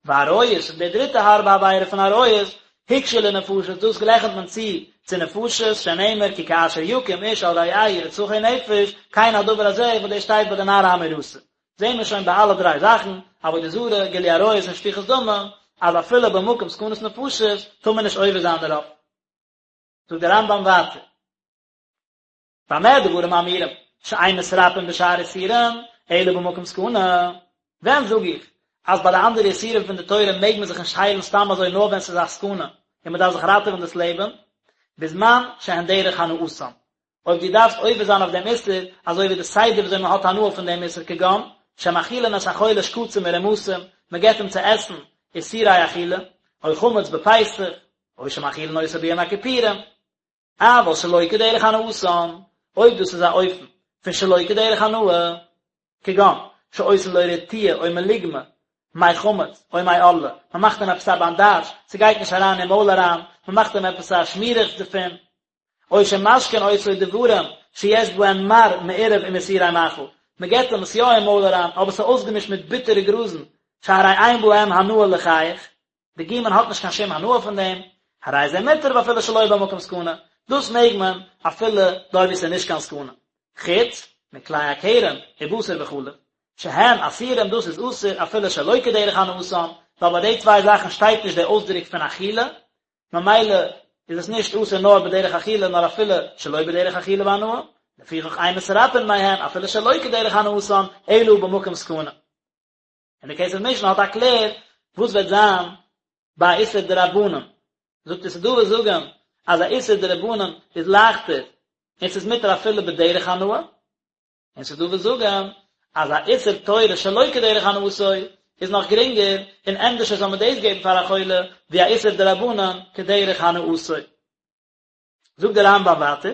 ועריות, און די דריטע הארבע עבירה פון עריות, הוקשו לנפשות, דאס גלייכנט מען צו צו נפשות, שנאמר כי כאשר יקום איש על רעהו רצחו נפש, כן הדבר הזה, וואס דאס שטייט ביי די נערה המאורסה. זעהן מיר שוין ביי אלע דריי זאכן, עבודה זרה, גילוי עריות און שפיכות דמים, אז אפילו במקום סכנת נפשות טאר מען נישט עובר זיין דערויף. זאגט דער רמב"ם ווייטער, במה דברים אמורים שאין מתרפאין בשאר איסורים אלא במקום סכנה, ווען זאג איך אז ביי די אנדערע איסורים פון די תורה מעג מען זיך נישט היילן סתם אזוי נאר ווען ס'איז א סכנה און מ'דארף זיך ראטעווען דאס לעבן, בזמן שהן דרך הנאתן, אויב דו דארפסט עובר זיין אויף דעם איסור, אזוי ווי די סדר וויאזוי מען האט הנאה פון דעם איסור כגון, שמאכילין את החולה שקצים ורמשים, מען געבט אים צו עסן איסורי אכילה, או חמץ בפסח, או שמאכילין אותו ביום הכיפורים. אבל שלא כדרך הנאתן, אויב דאס איז א אופן פון שלא כדרך הנאה, כגון, שעושין לו רטיה או מלוגמא, מי חמץ, או מי ערלה, מען מאכט אים עפעס א באנדאזש, ס'גייט נישט אריין אין מויל אריין, מען מאכט אים עפעס א שמירעכץ דערפון, או שמשקין אותו דברים שיש בהם מר מעורב עם איסורי מאכל, מען געבט אים עס יא אין מויל אריין, אבער ס'איז אויסגעמישט מיט ביטערע גראזן, שהרי אין בהם הנאה לחיך, די גומען האט נישט קיין שום הנאה פון דעם, הרי זה מותר ואפילו שלא במקום סכנה, דאס מעג מען אפילו דארט וואו ס'איז נישט קיין סכנה, חוץ מכלאי הכרם ובשר בחלב, שהן אסורים דאס איז אסור אפילו שלא כדרך הנאתן, ווייל ביי די צוויי זאכן שטייט נישט די אויסדרוק פון אכילה, ממילא איז עס נישט אסור נאר בדרך אכילה נאר אפילו שלא בדרך אכילה והנאה, לפיכך אין מתרפאין מהן אפילו שלא כדרך הנאתן אלא במקום סכנה. און די כסף משנה האט א קלער וואס וועט זיין ביי א איסור דרבנן, זאגט ער ס'איז דא וואס זאגן אז א איסור דרבנן איז לייכטער און ס'איז מותר אפילו בדרך הנאה, און ס'איז דא וואס זאגן אז א איסור תורה שלא כדרך הנאתו איז נאך גרינגער און ענדערשער זאל מען דאס געבן פאר א חולה ווי א איסור דרבנן כדרך הנאתו. זאגט דער רמב"ם ווייטער,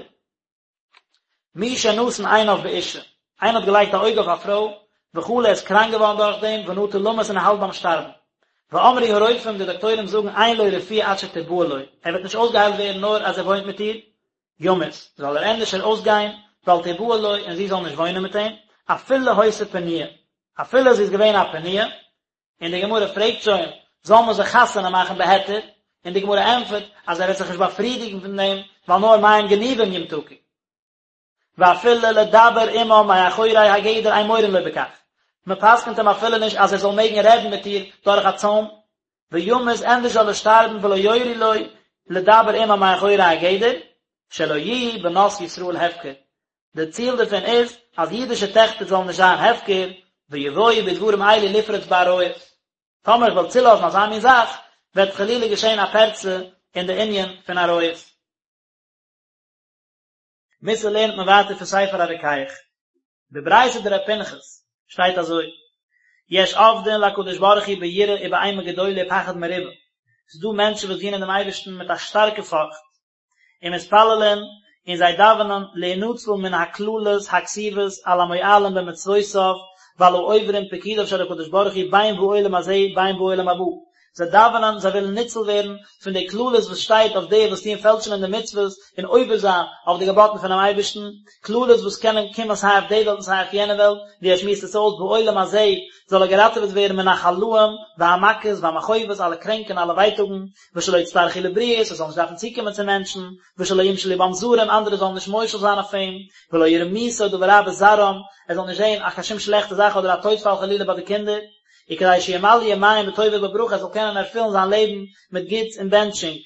מי שנתן עיניו באשה, איינער האט געלייגט א אויג אויף א פרוי, וחלה איז קראנק געווארן דורך דעם, ונטה למות און ער האלט ביים שטארבן. ואמרו הרופאים, די דאקטוירים זאגן, אין לו רפואה עד שתבעל לו, ער וועט נישט אויסגעהיילט ווערן נאר אז ער וואוינט מיט איר, ימות, זאל ער ענדערשער אויסגיין, ואל תבעל לו, און זי זאל נישט וואוינען מיט אים, אפילו היתה פנויה, אפילו זי איז געווען א פנויה, און די גמרא פרעגט שוין, זאל מען זיך חתונה מאכן בהיתר? און די גמרא ענטפערט אז ער וועט זיך נישט באפרידיגן פון דעם, ווייל נאר מים גנובים ימתקו. ואפילו לדבר עמה מאחורי הגדר אין מורין לו בכך, מען פסק'נט אים אפילו נישט אז ער זאל מעגן רעדן מיט איר דורך א צוים, וימות ענדערש זאל ער שטארבן ולא יורו לו לדבר עמה מאחורי הגדר, שלא יהיו בנות ישראל הפקר, די ציל דערפון איז אז אידישע טעכטער זאלן נישט זיין הפקר, ויבואו בדברים אלו לפרוץ בעריות. טאמער איך וועל צולאזן אזא מין זאך, וועט חלילה געשען א פרצה אין די ענין פון עריות. מוסר לערנט מען ווייטער פון ספר הרוקח. בברייתא דר' פנחס שטייט אזוי, יש עובדין להקדוש ברוך הוא ביראה ובאימה גדולה ופחד מרובה, ס'איז דא מענטשן וואס דינען דעם אייבערשטן מיט א שטארקע פארכט, ומתפללין, און זיי דאווענען, להינצל מן הקללות הכתובות על המועלים במצוותיו ועל העוברים פקודיו של הקדוש ברוך הוא בין בעולם הזה בין בעולם הבא, זיי דאווענען, זיי ווילן ניצול ווערן פון די קללות וואס שטייט אויף די וואס טוען פעלשן אין די מצוות און עובר זיין אויף די געבאטן פונעם אייבערשטן, קללות וואס קענען קומען סיי אויף די וועלט און סיי אויף יענע וועלט, ווי ער שמועסט עס אויס בעולם הזה זאל ער געראטעוועט ווערן מן החלאים והמכות והמכאובות אלע קרענק און אלע ווייטאגן, ושלא יצטרכו לבריות, ער זאל נישט דארפן צוקומען צו מענטשן, ושלא ימשלו בם זרים, אנדערע זאלן נישט מושל זיין אויף אים, ולא יראו מיתה או דבר רע בזרעם, ער זאל נישט זען א קיין שום שלעכטע זאך אדער א טויטפאל חלילה ביי די קינדער, וכדי שימלאו ימיהם בטוב ובברכה, ער זאל קענען ערפילן זיין לעבן מיט גוטס און בענטשונג.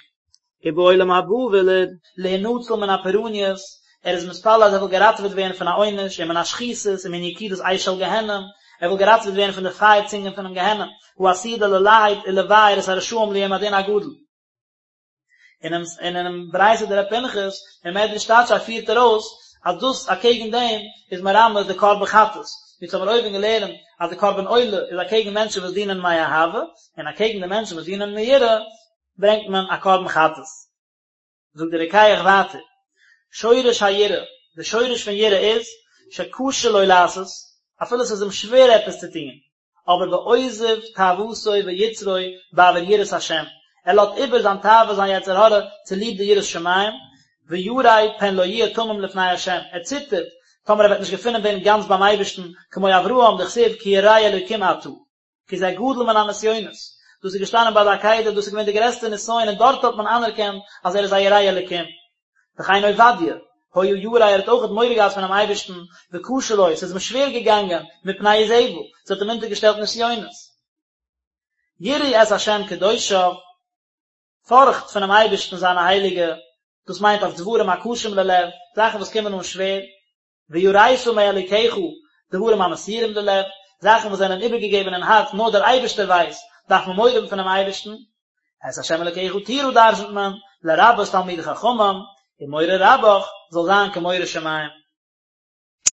ובעולם הבא וויל ער להינצל מן הפורעניות, ער איז מתפלל אז ער וויל געראטעוועט ווערן פון א עונש, ומן השחיתות, ומן יקידת אש של גיהנום, ער וויל געראטעוועט ווערן פון די פייער צונגען פונעם גיהנום, העתידה ללהט ולבער את הרשעים ליום הדין הגדול. אינעם אינעם ברייתא דר' פנחס אין מדרש תדשא פירט ער אויס אז דאס אקעגן דעם איז מרמז די קרבן חטאת, ווי אונז האבן אויבן געלערנט אז די קרבן עולה איז אקעגן מענטשן וואס דינען מאהבה, און אקעגן די מענטשן וואס דינען מיראה ברענגט מען א קרבן חטאת. זאגט דער רוקח ווייטער, שורש היראה, די שורש פון יראה איז, שקשה לו לעשות, אפילו עס איז אים שווער עפעס צו טון, אבער ועוזב תאוותו ויצרו בעבור יראת השם, ער לאזט איבער זיין תאווה זיין יצר הרע צוליב די יראת שמים, וירא פן לא יהיה תמים לפני השם, ער ציטערט טאמער ער וועט נישט געפונען ווערן גאנץ ביים אייבערשטן, כמו אברהם דכתיב כי ירא אלוקים אתה. כי זה גדול מן הנסיונות, דאס איז געשטאנען ביי די עקידה, דאס איז געווען די גרעסטע נסיון און דארט האט מען אנערקענט אז ער איז א ירא אלקים. וכן עובדיה. היה ירא ער האט אויכעט מורא געהאט פונעם אייבערשטן, וקשה לו, ס'איז אים שווער געגאנגען, מפני איזבל, זי האט אים אונטערגעשטעלט נסיונות. יראו את השם קדושיו, פארכט פונעם אייבערשטן זיינע הייליגע, דאס מיינט אויף דברים הקשים ללב, זאכן וואס קומען אן שווער, ויראת מאלוקיך, דברים המסורים ללב, זאכן וואס זענען איבערגעגעבן אין הארץ נאר דער אייבערשטער ווייסט, דארף מען מורא האבן פונעם אייבערשטן. את ה' אלוקיך תירא דרשנ'ט מען, לרבות תלמידי חכמים, ומורא רבך זאל זיין כמורא שמים.